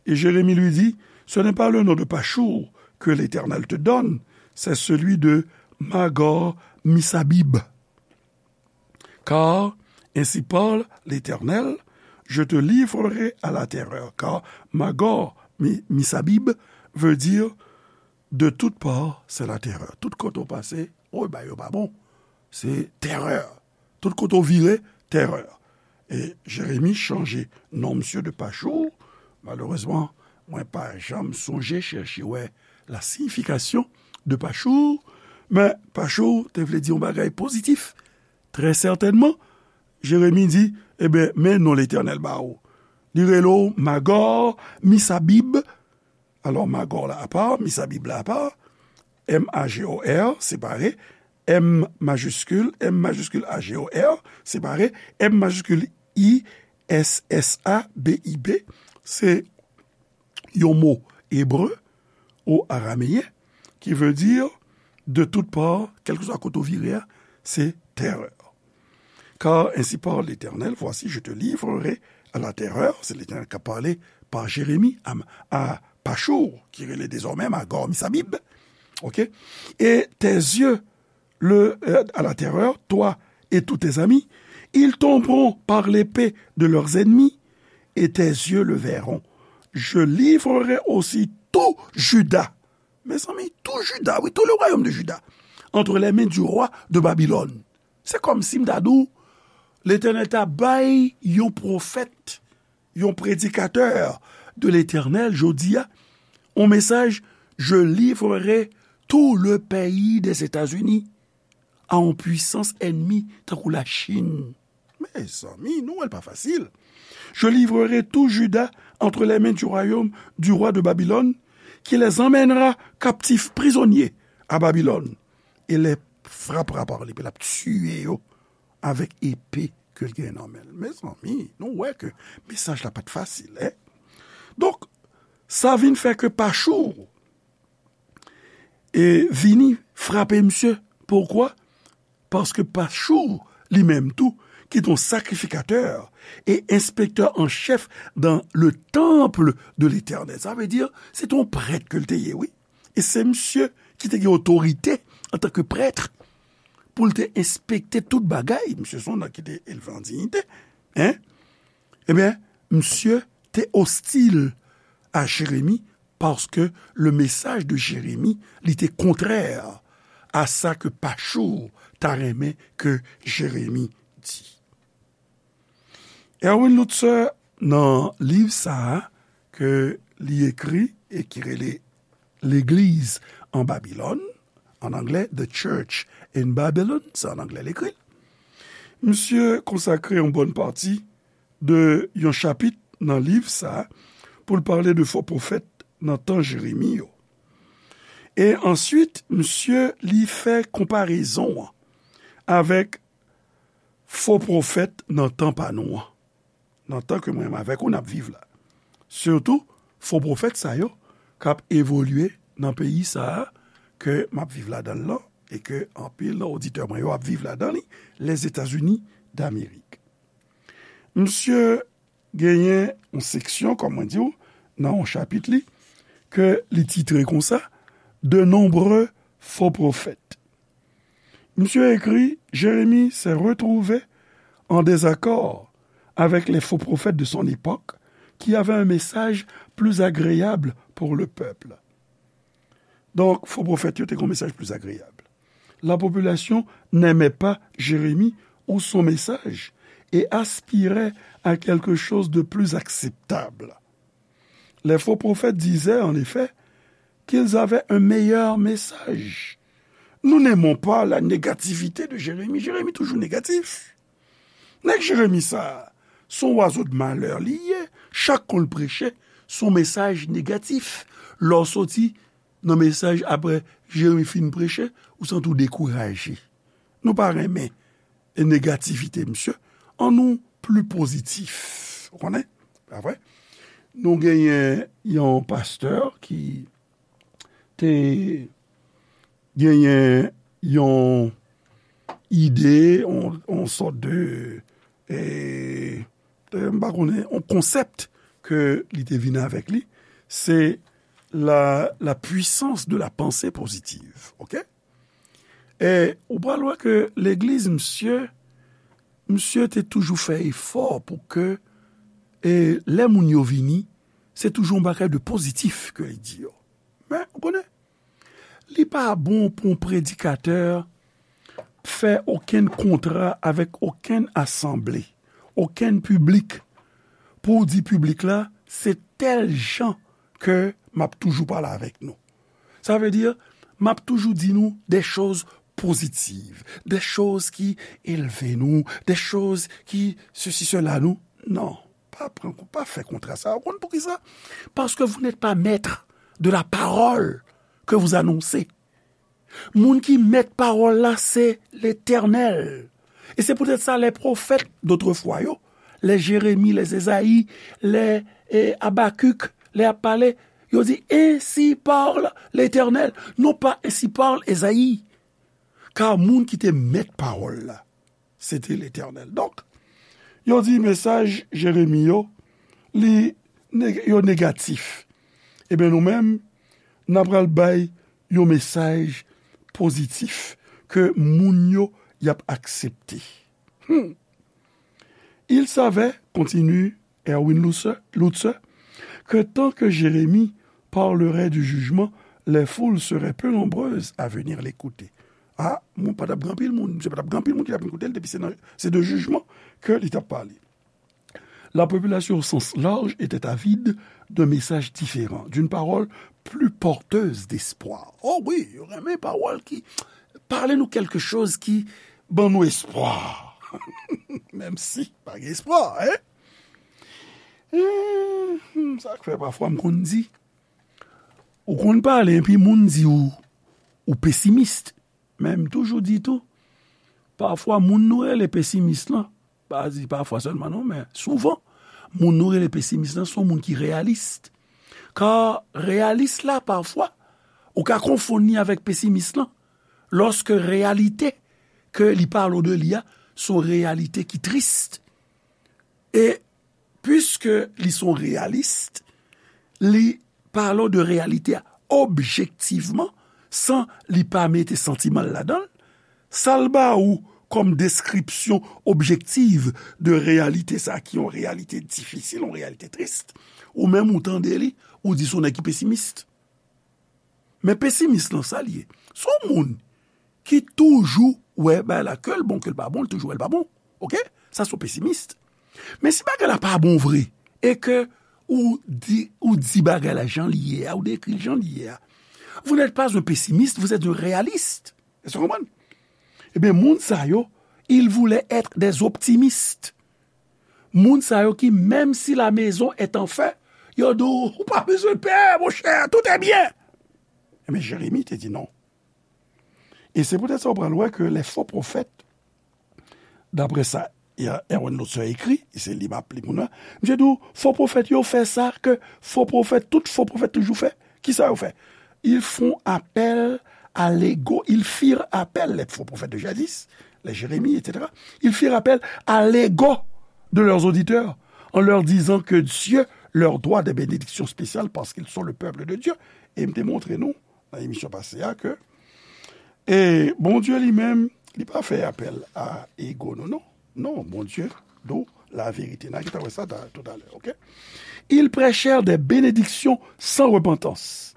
Et Jérémie lui dit, Ce n'est pas le nom de Pachou que l'Éternel te donne, c'est celui de Magor Misabib. Car ainsi parle l'Éternel, je te livrerai à la terreur. Car Magor Mi- Misabib veut dire de toutes parts, c'est la terreur. Tout kote w pase, o, bagay yo pa bon. Se terè. Tout kote w vire, terè. E Jeremi chanje non misye de Pachou. Malerezman, mwen pa janm sonje chèche wè la siyifikasyon de Pachou. Men Pachou te vle di yon bagay pozitif. Trè sètènman, Jeremi di, ebyen, men non Letènèl ba ou. Li rele w Magor, Misabib. Alò, Magor la apa, Misabib la apa. M A G O R, separe. M majiskil, M majiskil A G O R, separe. M majiskil I S S A B I B, se yon mo ebre ou arameyen ki vle di de tout part, kèlkeswa kote w vire a, se terè. Car ainsi parle l'Éternel, voici, je te livrerai à la terreur, se Letènèl k ap pale pa Jeremi a, a Pachou, ki rele dezòmè Magor Misabib. Ok? Et tes yeux le, euh, à la terreur, toi et tous tes amis, ils tomberont par l'épée de leurs ennemis, et tes yeux le verront. Je livrerai aussi tout Juda. Mezanmi, tout Juda, wi, tout le royaume de Juda, entre les mains du roi de Babylone. Se kòmsi m ta di w, Letènèl ta bay yon pwofèt, yon predikatè de Letènèl, jodi a, yon mesaj, je livrerai tout le pays des États-Unis à yon pwisans ènmi tankou Lachin. Mezanmi, nou wè l pa fasil. Je livrerai tout Juda entre les mains du royaume du roi de Babylone, qui les emmènera captifs, prisonniers, à Babylone, et les frappera par l'épée, l ap tiye yo avèk epe ke l gen nan men l. Mezanmi, nou wè ke mesaj la pa t fasil, en? Donk, sa vin fè ke Pachou e vini frape misye. Poukwa? Paske Pachou, li menm tou, ki te yon sakrifikatè e enspektè an chèf dans le temple de l'Éternel. Sa vle di, se te yon prèt ke l te ye, wi. E se misye ki te gen otorite antanke prèt pou l te enspekte tout bagay. Misye se yon nèg ki te elve an diyite. En? Ebyen, misye te ostil a Jeremi paske le mesaj de Jeremi, li te kontrè a sa ke Pachou ta renmen ke Jeremi di. Erwin Lutzer, nan liv sa a ke li ekri e ki rele Legliz an Babilòn, an anglè, The Church in Babylon, se an anglè l ekri l. Misye konsakre yon bòn pati de yon chapit nan liv sa a pou l pale de fo pwofèt nan tan Jeremi yo. E answit, misye li fè konparezon an avèk fo pwofèt nan tan pa nou an, nan tan ke mwen menm avèk ou n ap viv la. Sitou, fo pwofèt sa yo k ap evolye nan peyi sa a ke m ap viv ladan l lan e ke anpil nan oditè mwen yo ap viv ladan li, Lèzetazini Damerik. Misye genyen yon seksyon, kòm mwen di w, nan yon chapit li, ke li titre konsa, De nombreux faux prophètes. Misye ekri, Jérémie s'est retrouvé en désaccord avec les faux prophètes de son époque, qui avaient un message plus agréable pour le peuple. Donk, fo pwofèt yo te gen yon mesaj plis agreyab. La population n'aimait pas Jérémie ou son message et aspirait à quelque chose de plus acceptable. Les faux prophètes disaient, en effet, qu'ils avaient un meilleur message. Nous n'aimons pas la négativité de Jérémie. Jérémie toujours négatif. Nèg Jeremi sa, se yon oiseau de malheur li ye. Chak kou l preche, se yon mesaj negatif. Lè w soti nan mesaj apre Jeremi fin preche, ou santi w dekouraje. Nou pa renmen negativite, mesye. Annou pli pozitif. Ou konnen? Pa vre? Nou genyen yon pastè ki te genyen yon ide, yon, yon sòt de, e, e, m pa konnen, yon konsèp ke li te vin avèk li, se la, la puissance de la pensée positive, ok? E ou pral wè ke legliz, misye, misye te toujou fè efò pou ke, e, lè moun yo vini, se toujou yon bagay de pozitif ke li di yo. Men, ou konnen, li pa bon pou yon predikatè fè okenn kontra avèk okenn asanble, okenn piblik, pou w di piblik la, se tèl jan ke m ap toujou pale avèk nou. Sa vle di, m ap toujou di nou de choz pozitiv, de choz ki elve nou, de choz ki sesi, sela nou. Non, pa pran, pa fè kontra sa. Ou konn poukisa? Parce que vous n'êtes pas maître de la parole que vous annoncez. Moun ki mèt pawòl la, se Letènèl. E se poutèt sa, les prophètes d'autrefois yo, les Jérémie, les Ezayi, les, e, Abakik, lè y ap pale, yo di, ainsi parle l'Éternel. Non pa ainsi parle Ezayi. Ka moun ki te mèt pawòl la, se te Letènèl. Donk, yo di mesaj Jeremi yo, li neg-, yo negatif. Ebyen, nou menm, n a pral bay yon mesaj pozitif ke moun yo y ap aksepte. Hmm. Il savait, continue Erwin Lutzer, Lutzer, que tant que Jérémie parlerait du jugement, les foules seraient peu nombreuses à venir l'écouter. Ah, moun pa t ap gen anpil moun, se pa t ap gen anpil moun ki t ap vin koute l, depi se nan, se de jijman ke li t ap pale. La population au sens large était avide d'un message différent, d'une parole plus porteuse d'espoir. Oh wi, yo renmen pawòl ki pale nou quelque chose ki ban nou espwa. Menm si pa gen espwa, hein? Eh, hmm, sa k fè pafwa m konn di, ou konn pale, epi moun di ou, ou pesimis. Men m toujou di tou, pafwa moun nou rele pesimis lan, pa di pafwa sèlman non, men souvan, moun nou rele pesimis lan se yon moun ki reyalis. Ka reyalis la, pafwa, ou ka konfonn li avèk pesimis lan, lòske reyalite ke li pale de li a, se yon reyalite ki tris. E piske li se yon reyalis, li pale de reyalite a objektivman, san li pa mete santiman l ladan l, sa l ba ou kòm deskripsyon objektiv de reyalite sa a, ki yon reyalite difisil, yon reyalite tris, ou menm ou tande li, ou di se yon nèg ki pesimis. Men pesimis lan, sa l ye? Se yon moun ki toujou wè bagay la, ke l bon, ke l pa bon, l toujou wè l pa bon. Oke? Sa se yon pesimis. Men si bagay la pa bon vre, e ke ou di, ou di bagay la jan li ye a, ou dekri l jan li ye a, vous n'êtes pas un pessimiste, vous êtes un réaliste. Èske w konprann? Ebyen, moun sa yo, ils voulaient être des optimistes. Moun sa yo ki, menm si la maison est en feu, yo di w, ou pa bezwen pè, monchè, tout est bien. Ebyen, Jeremi te di non. E se poutèt sa w pral wè ke les faux prophètes, daprè sa Erwin Lutzer ekri, e se li m ap li pou nou, misye di w, fo pwofèt yo fè sa ke fo pwofèt, tout fo pwofèt toujou fè. Kisa yo fè? Ils font appel à l'ego, ils firent appel, les faux prophètes de jadis, les Jérémie, et cetera. Ils firent appel à l'ego de leurs auditeurs en leur disant que Dieu leur doit des bénédictions spéciales parce qu'ils sont le peuple de Dieu. E m te montre nou nan emisyon pase a ke, e Bondye li menm, li pa fè apèl a ego nou, non. Non, Bondye, nou, la vérité. N a gentan wè sa ta-, toutalè, oke? Ils prêchèrent des bénédictions sans repentance.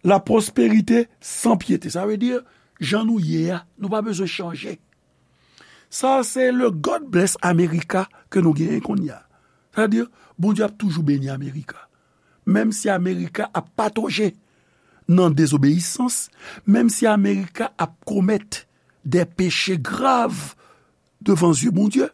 La prospérité sans piété. Sa vle di, jan nou ye a, nou pa bezwen chanje. Sa se le God bless America ke nou genyen kounye a. Sa vle di, Bondye ap toujou beni America. menm si Amerika ap patoje nan dezobeyisans, menm si Amerika ap komèt de peche grav devan zye Bondye,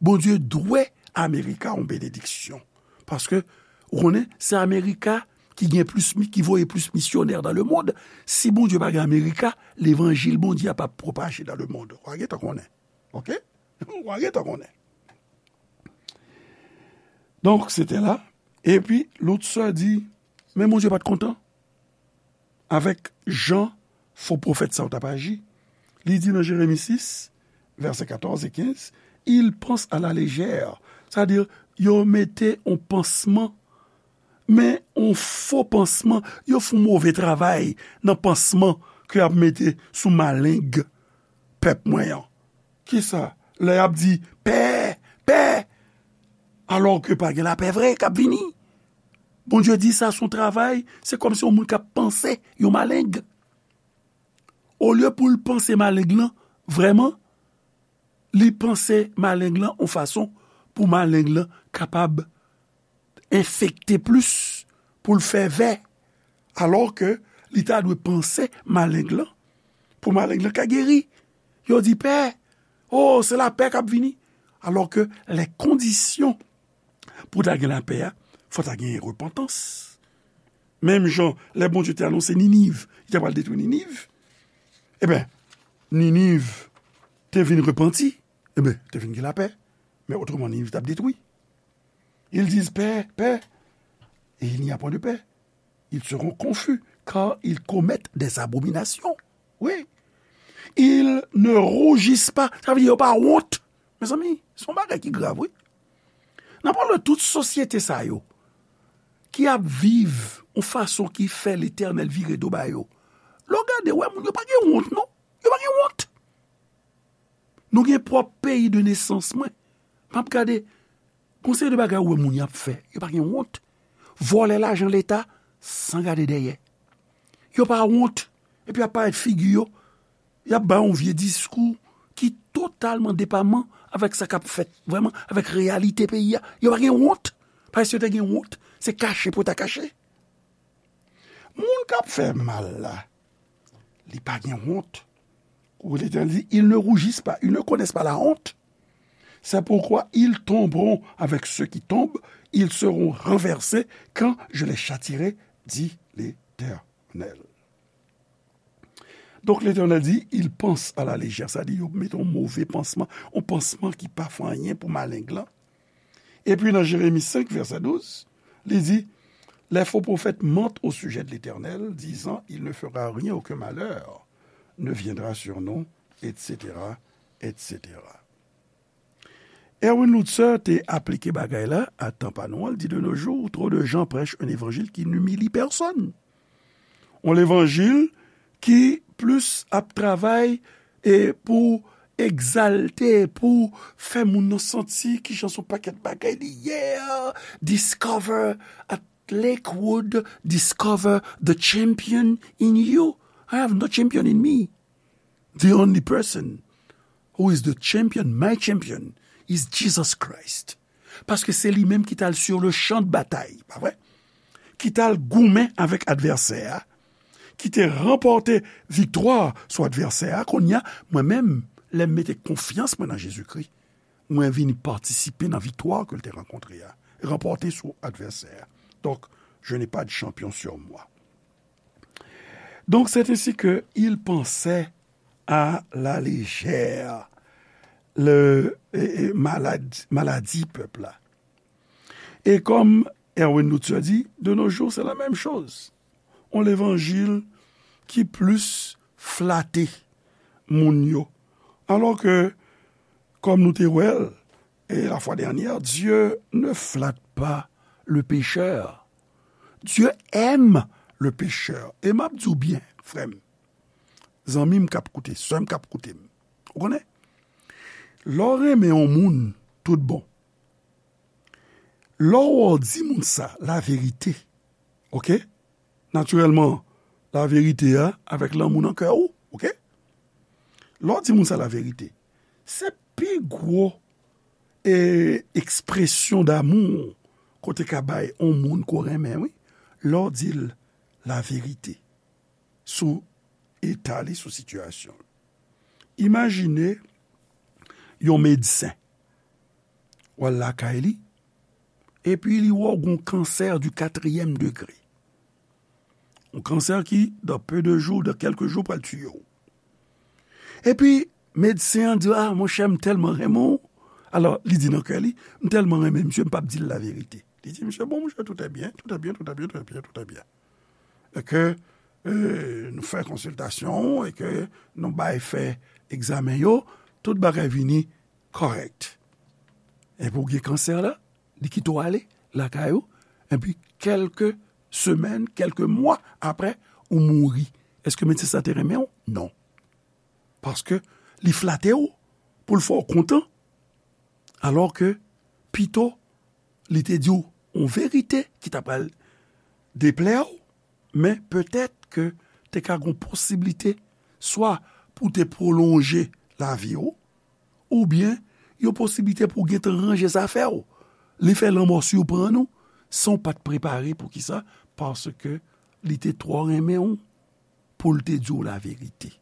Bondye dwe Amerika yon benediksyon. Paske, ou konnen, se Amerika ki gen plis, ki voye plis misyonè nan lemonn. Si Bondye pa gen Amerika, levanjil Bondye a p ap pwopaje nan lemonn. W a gentan konnen. Oke? W a gentan konnen. Donk, se te la. Epi, Luther di, men Bondye pa t kontan avèk jan fo pwofèt sa yo t ap aji. Li di nan Jeremi sis, vèsè katòz e kenz, ils pensent à la légère. Sa di, yo mete yon pansman, men yon fo pansman, yo fè yon move travay nan pansman ke y ap mete sou maleng pèp mwen an. Kisa? Lè y ap di, pè, pè, alò ke pa gen lapè vre k ap vini. Bondye di sa se yon travay, se kòmsi yon moun k ap panse yon maleng. Olye pou l panse maleng lan, vrèman, li panse maleng lan yon fason pou maleng lan kapab enfekte plis, pou l fè vè, alò ke li ta dwe panse maleng lan, pou maleng lan ka geri. Yo di, pè, o, se lapè k ap vini. Alò ke lè kondisyon pou ta gen lapè a, fò ta gen repantans. Menm jan, lè Bondye te anonse Niniv, li ta pral detwi Niniv, eben, Niniv te vin repanti, eben, te vin gen lapè. Men otreman, Niniv t ap detwi. Ils disent, paix, paix, et il n'y a point de paix. Ils seront confus, car ils commettent des abominations. Wi. Ils ne rougissent pas. Sa vle di yo pa wont. Mezanmi, se yon bagay ki grav, wi. Nan pale tout sosyete sa yo, ki ap viv yon fason ki fè Letènèl vire do ba yo. Lè w gade, w wè moun yo pa gen wont, non. Yo pa gen wont. Nou gen pwòp peyi de nesans mwen. M ap gade, gon seri de bagay ou wè moun y ap fè. Yo pa gen wont. Vòlè lajan Leta san gade dèyè. Yo pa wont. Epi y ap parèt figi yo. Y ap bay yon vye diskou ki totalman depaman avèk sa k ap fèt, vrèman, avèk reyalite peyi a. Yo pa gen wont. Paske si yo te gen wont, se kache pou yo ta kache. Moun k ap fè mal la, li pa gen wont. Ou Letènèl di, ils ne rougissent pas, ils ne connaissent pas la honte. C'est pourquoi ils tomberont avec ceux qui tombent, ils seront renversés quand je les châtierai, dit l'Éternel. Donk, Letènèl di, ils pensent à la légère, sa di yo mete yon move pansman, yon pansman ki pa fè anyen pou maleng lan. Epi nan Jeremi senk, vèsè douz, li di, les faux prophètes mentent au sujet de l'Éternel, disant, il ne fera rien, aucun malheur ne viendra sur nous, et cetera, et cetera. Erwin Lutzer te aplike bagay la a tan pa nou an, li di, de nos jours, trop de gens prêchent un évangile qui n'humilie personne. Yon levanjil ki plis ap travay e pou egzalte, pou fè moun nan santi kijan se yon pakèt bagay li ye a. Discover at Lakewood, discover the champion in you. I have no champion in me. The only person who is the champion, my champion, is Jesus Christ. Paske se li menm ki t al sur le champ de bataille, pa vre? Ki t al goumen avèk advèsè a, ki te ranpòte viktwa sou advèsè a. Kounye a, mwen menm, lè m mete konfyans mwen nan Jezikri, mwen vin patisipe nan viktwa ke l te rankontre a, ranpòte sou advèsè a. Donk, je n'ai pas de champion sur moi. Donc, c'est ainsi que il pensait à la légère le, e, e, maladi, maladi pèp la. E kòm Erwin Lutzer di, de nos jours, c'est la même chose. On levanjil ki plis flate moun yo. Alò ke, kòm nou te wè l, e la fwa dènyè, Dieu ne flatte pas le pécheur. Dieu aime le pécheur. E m ap di w byen, frè m, zanmi m k ap koute, sè m k ap koute m. Ou konnen? Lè w renmen yon moun tout bon, lè w di moun sa laverite, oke? Natirèlman, laverite a avèk lanmou nan kè w, oke? Lè w di moun sa laverite, se pi gwo e ekspresyon damou ke w te ka bay yon moun ke w renmen, wi, lè w di l laverite sou eta li, sou sitiyasyon l. Imajine yon medsen, w al lakay li, epi li wè w gen yon kansè di katriyèm degre. Yon kansè ki, dans peu de jours, dans quelques jours, pral tiye w. Epi, medsen an di, "Ah, monchè, m tèlman renmen w." Alò, li di nan kè li, "M tèlman renmen misye, m p ap di l laverite." Li di, "Misye, bon, monchè, tout est bien, tout est bien, tout est bien, tout est bien, tout est bien." E ke, euh, nou fè konsiltasyon, e ke nou bay fè egzamen yo, tout bagay vini kòrèk. Epi w gen kansè la, li kite w ale lakay ou, epi kèlke semèn, kèlke mwa apre, ou mouri. Èske medsen sa te renmen w? Non. Paske li flate w pou l fè w kontan, alò ke pito li te di w yon verite ki ta pral deplè w, men petèt ke te ka gen posiblite swa pou te pwolonje lavi w, oubyen yon posiblite pou gentan ranje zafè w. Li fè lanmò siprann ou san w pa t prepare. Poukisa? Paske li te twò renmen w pou l te di w laverite.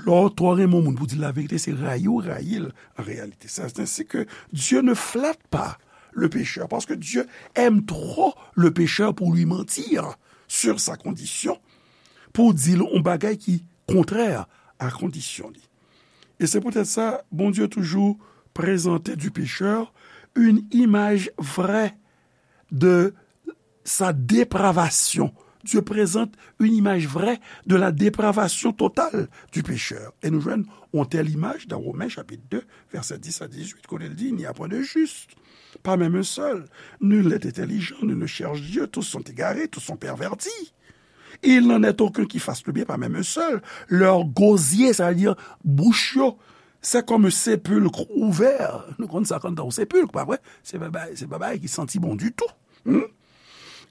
Lè w twò renmen yon moun pou di l laverite, se rayi w rayi l an reyalite. C'est ainsi que Dieu ne flatte pas le pécheur, parce que Dieu aime trop le pécheur pour lui mentir sur sa condition, pou di l yon bagay ki kontrè a kondisyon li. E se poutèt sa, Bondye toujou prezante du pécheur une image vraie de sa dépravation. Dieu présente une image vraie de la dépravation totale du pécheur. E nou jwenn yon tèl imaj nan Women chapit de, vèsè dis a dizuit, kote l di, "Il n'y a point de juste, pas même un seul. Nul n'est intelligent, nul ne cherche Dieu, tous sont égarés, tous sont pervertis. Il n'en est aucun qui fasse le bien, pas même un seul. Leur gosier," sa vle di bouch yo, "c'est comme un sépulcre ouvert." Nou konn sa konn tan yon sepilk, pa vre? Se pa bagay, se pa bagay ki santi bon ditou. Hmm?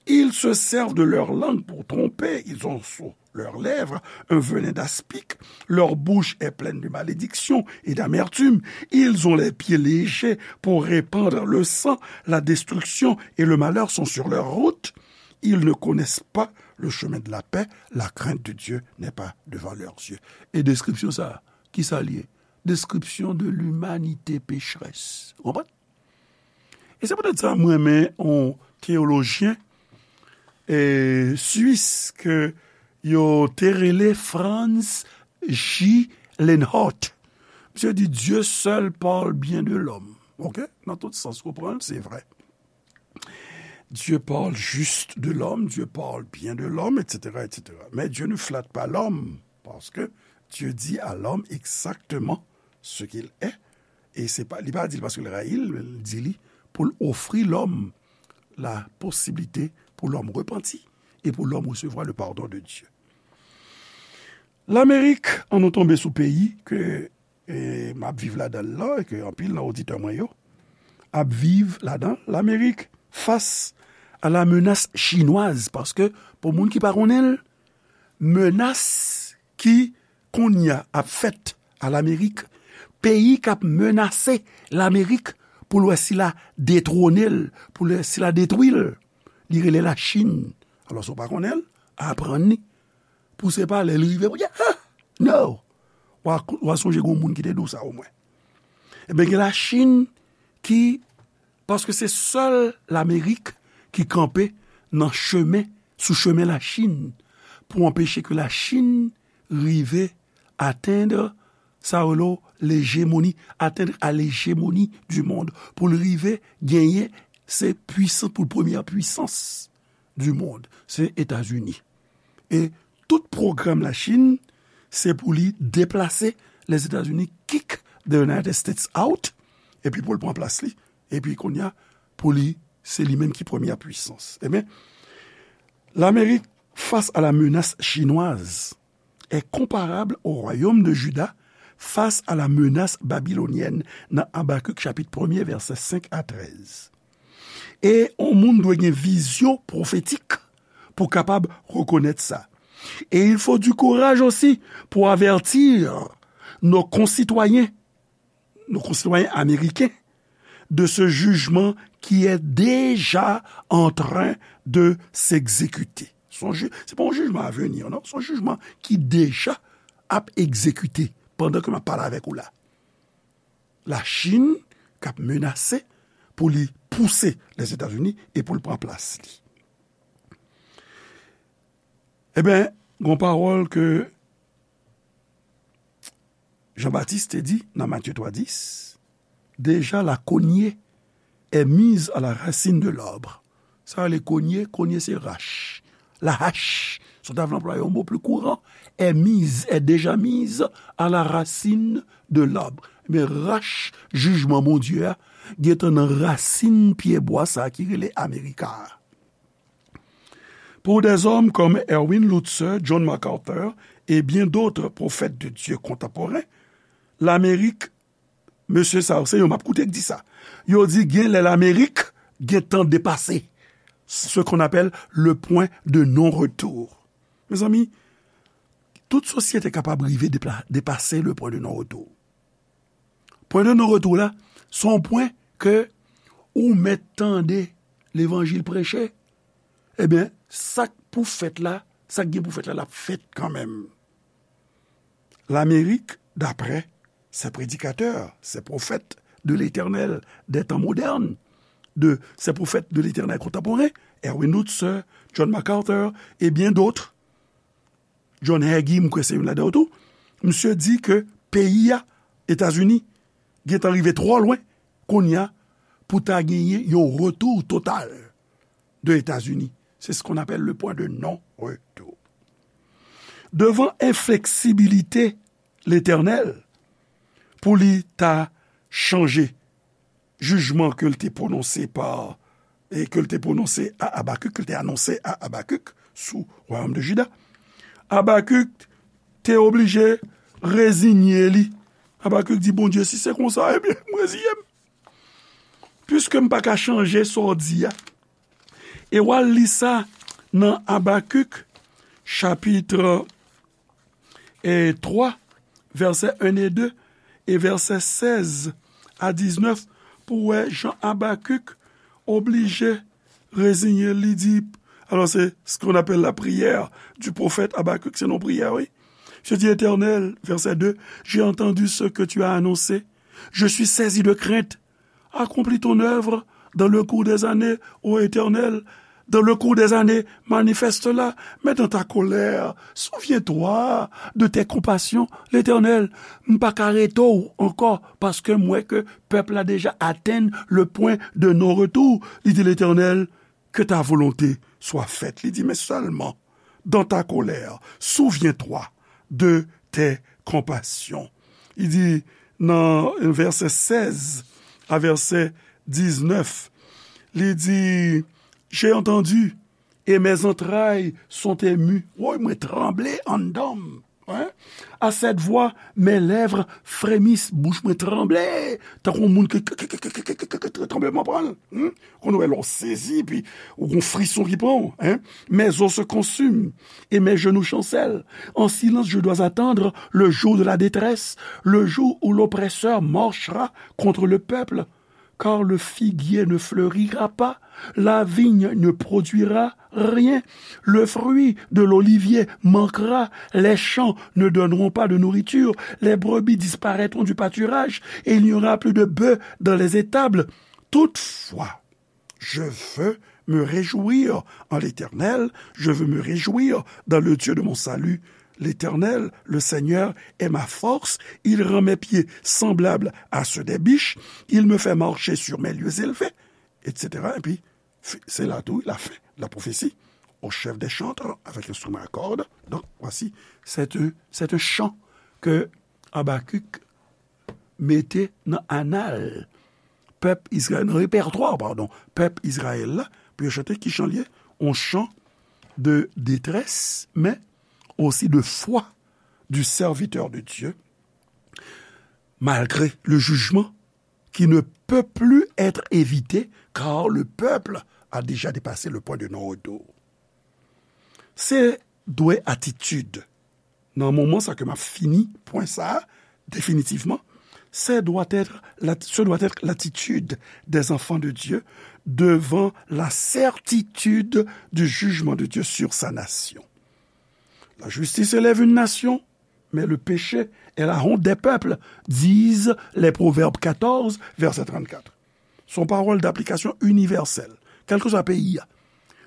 "Ils se servent de leur langue pour tromper, ils ont sur leurs lèvres un venin d'aspic, leur bouche est pleine de malédiction et d'amertume, ils ont les pieds légers pour répandre le sang, la destruction et le malheur sont sur leur route, ils ne connaissent pas le chemin de la paix, la crainte de Dieu n'est pas devant leurs yeux." E deskripsyon sa, ki sa l ye? Description de l'humanité pécheresse. Ou konprann? E se poutèt sa mwen renmen yon teyolojyen, e, swis ke yo te rele Franz J. Lenhardt. Misye di, "Dieu seul parle bien de l'homme." Ok? Nan tout sans ou pran l, se vrè. Dieu parle juste de l'homme, Dieu parle bien de l'homme, et cetera, et cetera. Mais Dieu ne flatte pas l'homme, parce que Dieu dit à l'homme exactement ce qu'il est. E se pa, li pa di l paske l rayi l, men l di li pou l ofri lòm la posiblite pou lòm repanti e pou lòm resevwa le pardon de Dieu. Lamerik, an nou tonbe sou peyi ke, e, m ap viv ladan l lan, e ke anpil nan oditè mwen yo ap viv ladan l. Lamerik fas a la menace chinoise, paske pou moun ki pa konnen l, menas ki kounye a ap fèt a Lamerik, peyi k ap menase Lamerik pou l wè si l a detwone l, pou l wè si l a detwi l, li rele Lachin. Alò, si w pa konnen l, aprann li. Pou se pa lè l rive pou di, "Ah, no!" W a, w a sonje gen yon moun ki te di w sa omwen. Ebyen, gen Lachin ki, paske se sèl Lamerik ki kanpe nan chemen, sou chemen Lachin, pou anpeche ke Lachin rive atenn sa yo rele lejemoni, atteindre à l'hégémonie du monde, pou l rive genyen se pwisans, pou l premyè pwisans du monde, se Etazini. E tout pwogram Lachin, se pou li deplase Lèzetazini, kick the United States out, epi pou l pran plas li, epi kounye a, pou li, se li menm ki premyè pwisans. Ebyen, Lamerik, face à la menace chinoise, est comparable au royaume de Juda face à la menace babylonienne, nan Abakik chapit premye, vèsè senk a trèz. E yon moun dwe gen vizyon pwofetik pou kapab rekonèt sa. Et il faut du courage aussi pour avertir nos concitoyens, nos concitoyens américains, de ce jugement qui est déjà en train de s'exécuter. Se yon ji-, se pa yon jijman a vini, non. Se yon jijman ki deja ap egzekite pandan ke m ap pale avèk ou la. Lachin k ap menase pou li pouse Lèzetazini e pou l pran plas li. Ebyen, gon pawòl ke Jan Batis te di nan Matye twa dis, déjà la cognée est mise à la racine de l'arbre. Sa rele cognée, cognée se rach. La hache, si w ta vle anplwaye yon mo pli kouran, est mise, est déjà mise à la racine de l'arbre. Men rach jijman Bondye a gentan nan rasin pyebwa sa a ki rele Amerika a. Pour des hommes comme Erwin Lutzer, John MacArthur et bien d'autres prophètes de Dieu contemporains, Lamerik, mesye sa yo, se yo m ap koute k di sa. Yo di gen lè Lamerik gentan depase ce qu'on appelle le point de non-retour. Mezanmi, tout sosyete kapab rive depla-, depase le point de non-retour. Pwen de non-retour la, se yon pwen ke ou mèt tande levanjil preche, ebyen, sa k pou fèt la, sa k gen pou fèt la, l ap fèt kanmenm. Lamerik, d'après ces prédicateurs, ces prophètes de l'Éternel des temps modernes, de ces prophètes de l'Éternel contemporains, Erwin Lutzer, John MacArthur et bien d'autres, John Hagee, m kwè se youn ladan yo tou, misye di ke peyi a, Etazini, gentan rive twò lwen kounye a pou ta genyen yon retour total de Etazini. C'est ce qu'on appelle le point de non-retour. Devant inflexibilité l'Éternel, pou li ta chanje jijman ke l te pwononse pa, e ke l te pwononse a Abakik, ke l te anonse a Abakik sou wayòm de Jida, Abakik te oblije rezinye li. Abakik di, Bondye, si se konsa, ebyen, m rezinye m. Piske m pa ka chanje sa w di a. E w al li sa nan Abakik, chapit e twa, vèsè en e de, e vèsè sèz a diznèf, pou wè jan Abakik oblije reziyen l, li di, alors c'est ce qu'on appelle la prière du prophète Habacuc, se yon priyè, wi. Je dis, Éternel, verset deux, j'ai entendu ce que tu as annoncé. Je suis saisi de crainte. Accomplis ton œuvre dans le cours des années, ô Éternel, dans le cours des années, manifeste-la, mais dans ta colère, souviens-toi de tes compassions. Letènèl, m pa ka rete w ankò, paske m wè ke pèp la deja atenn le point de non-retour. Li di, Letènèl, que ta volonté soit faite. Li di, mais seulement dans ta colère, souviens-toi de tes compassions. Li di nan vèsè sèz a vèsè diznèf, li di, j'ai entendu et mes entrailles sont émues. Woy, mwen tranble anndan m. Hein? À cette voix, mes lèvres frémissent, bouch mwen tranble, tankou yon moun ki, ki, ki, tranbleman pran l. Hmm? Konn wè lè w sezi, epi ou gon frison ki pran w, hein? Mes os se consument et mes genoux chancellent. En silence, je dois attendre le jour de la détresse, le jour où l'oppresseur marchera contre le peuple. Car le figuier ne fleurira pas, la vigne ne produira rien, le fruit de l'olivier manquera, les champs ne donneront pas de nourriture, les brebis disparaîtront du pâturage, et il n'y aura plus de bœufs dans les étables. Toutefois, je veux me réjouir en l'Éternel, je veux me réjouir dans le Dieu de mon salut. L'Éternel, le Seigneur, est ma force, il rend mes pieds semblables à ceux des biches, il me fait marcher sur mes lieux élevés, et cetera. Epi, fi-, se la tou, la fin de la prophétie. Au chef des chantres, avec instrument à cordes. Donc, voici, c'est un, c'est un chant que Habacuc mete nan anal pèp Izrayèl, nan repètwa, padon, pèp Izrayèl la, pou yo chante ki chan l ye, yon chan de détresse, mais aussi de foi du serviteur de Dieu, malgré le jugement qui ne peut plus être évité, car le peuple a déjà dépassé le point de non-retour. Se dwe atitid nan moman sa ke m ap fini pwen sa a definitivman, Ce doit être la, ce doit être l'attitude des enfants de Dieu devant la certitude du jugement de Dieu sur sa nation. La justice élève une nation, mais le péché est la honte des peuples, disent les Proverbes quatorze, verset trente-quatre. Se yon pawòl daplikasyon inivèsèl, kèlkeswa peyi a.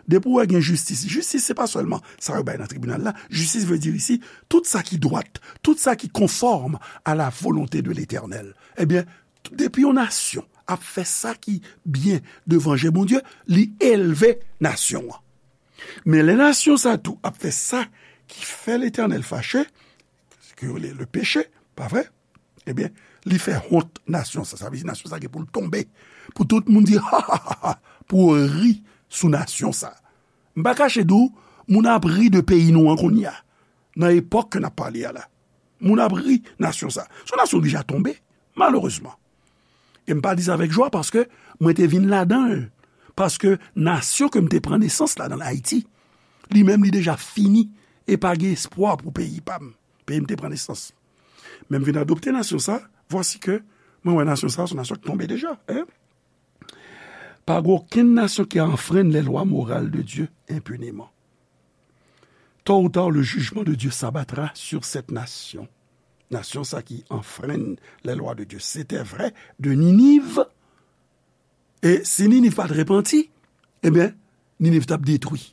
Depi w wè gen jistis, jistis se pa sèlman sa yo bay nan tribinal la. Jistis vle di isi, tout sa ki dwat, tout sa ki konfòm à la volonté de l'Éternel. Ebyen, depi yon nasyon ap fè sa ki byen devan je Bondye, li elve nasyon an. Men lè nasyon sa tou ap fè sa ki fè Letènèl fache, ki rele le peche, pa vre? Ebyen, li fè wont nasyon sa. Sa vle di nasyon sa gen pou l tonbe. Pou tout moun di, ha, ha, ha, ha, pou ri sou nasyon sa. M pa kache di w, moun ap ri de peyi nou an kounye a. Nan epòk ke n ap pale a la. Moun ap ri nasyon sa. Se yon nasyon ki deja tonbe, malerezman. E m pa di sa avèk jwa paske mwen te vin ladan l. Paske nasyon ke m te pran nesans ladan l, Ayiti, li menm li deja fini e pa gen espwa pou peyi pa m. Peyi m te pran nesans. Men m vin adopte nasyon sa, vwasi ke mwen wè nasyon sa, se yon nasyon ki tonbe deja. Hein? Pa gen okenn nasyon ki anfrenn les lois morales de Dieu impunément. Tôt ou tard, le jugement de Dieu s'abattra sur cette nation. Nasyon sa ki anfrenn les lois de Dieu. Se te vre de Niniv. E si Niniv pa t repanti, ebyen, Niniv t ap detwi.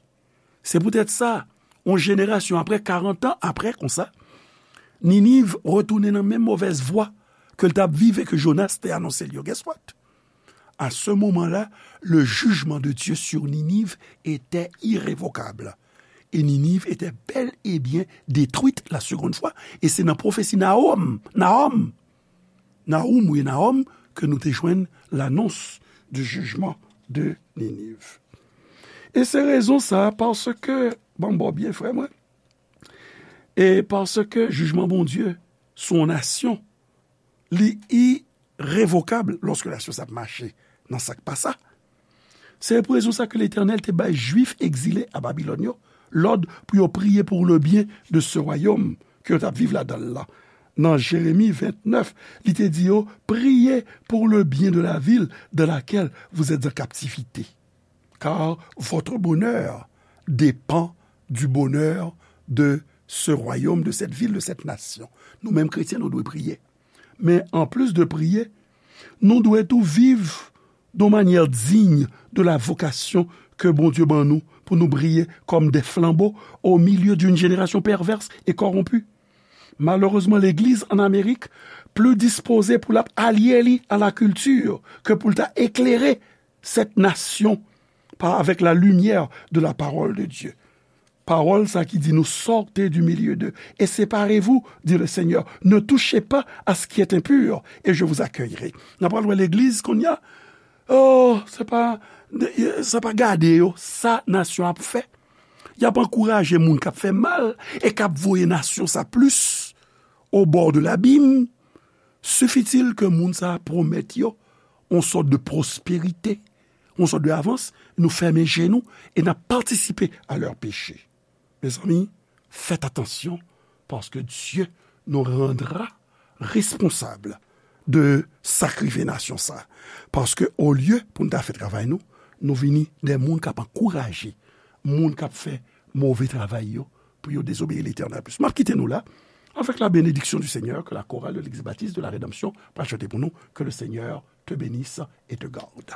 Se poutèt sa, yon jenerasyon apre, karant an apre konsa, Niniv retounen nan menm movèz vwa ke l t ap viv e ke Jonas te anonse l yo. Guess what? À ce moment-là, le jugement de Dieu sur Ninive était irrévocable. Et Ninive était bel et bien détruite la seconde fois. E se nan pwofesi Nahom, Nahom, Nahum ou Nahom, ke nou te jwenn l'annonce du jugement de Ninive. E se rezon sa, paske, ban m ba w byen, frè mwen, e paske jijman Bondye sou yon nasyon, li irevokab lòske nasyon sa ap mache nan sa k pa sa. Se pou rezon sa ke Letènèl te bay Jwif egzile a Babilòn yo lòd pou yo priye pour le bien de ce royaume ke yo t ap viv ladan l lan. Nan Jeremi vennèf, li te di yo, priez pour le bien de la ville dans laquelle vous êtes en captivité, car votre bonheur dépend du bonheur de ce royaume, de cette ville, de cette nation. Nou menm kretyen, nou dwe priye. Men anplis de priye, nou dwe tou viv de manière digne de la vocation que Bondye ban nou pou nou briye comme des flambeaux au milieu d'une génération perverse et corrompue. Malerezman, legliz an Amerik pli dispoze pou l ap alye li a la kilti ke pou l ta eklere cette nation par, avec la lumière de la parole de Dieu. Pawòl sa ki di nou, sortez du milieu d'eux et séparez-vous, dit le Seigneur. Ne touchez pas à ce qui est impur et je vous accueillerai. N ap pral wè legliz kounye a. Oh, se pa, sa pa gade yo, sa nasyon ap fè. Y ap ankouraje moun k ap fè mal e k ap voye nasyon sa plis au bord de l'abîme. Suffit-il ke moun sa a pwomèt yo yon sòt de pwosperite, yon sòt de avans, nou fèmen je nou e n ap patisipe a lè peche. Mezanmi, faites attention, paske Dieu nous rendra responsable de sa k rive nasyon sa. Paske olye pou n ta fè travay nou, nou vini de moun k ap ankouraje moun k ap fè move travay yo pou yo dezobeyi Letènèl plis. M ap kite nou la avec la bénédiction du Seigneur que la chorale de l'Église baptiste de la Rédemption va chanter pour nous. Que le Seigneur te bénisse et te garde.